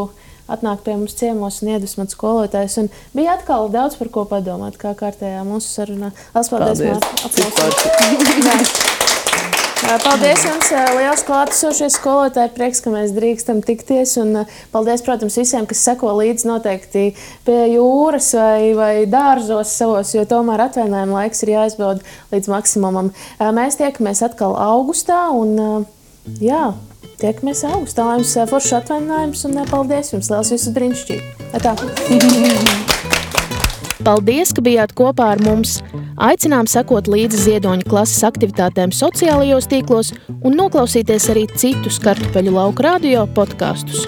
atnāk pie mums ciemos un iedvesmot skolotājus. Un bija atkal daudz par ko padomāt, kā kārtējā mūsu sarunā. Lielas paldies, Māra. Paldies jums, liels klātesošie skolotāji. Prieks, ka mēs drīkstam tikties. Un paldies, protams, visiem, kas seko līdzi noteikti pie jūras vai dārzos savos, jo tomēr atvainājuma laiks ir jāizbauda līdz maksimumam. Mēs tiekamies atkal augustā un tiekamies augustā. Lai jums foršs atvainājums un paldies jums. Liels visus brīnišķīgi. Tā. Paldies, ka bijāt kopā ar mums. Aicinām sekot līdzi Ziedoņa klases aktivitātēm sociālajos tīklos un noklausīties arī citus Kartupeļu lauku radio podkastus.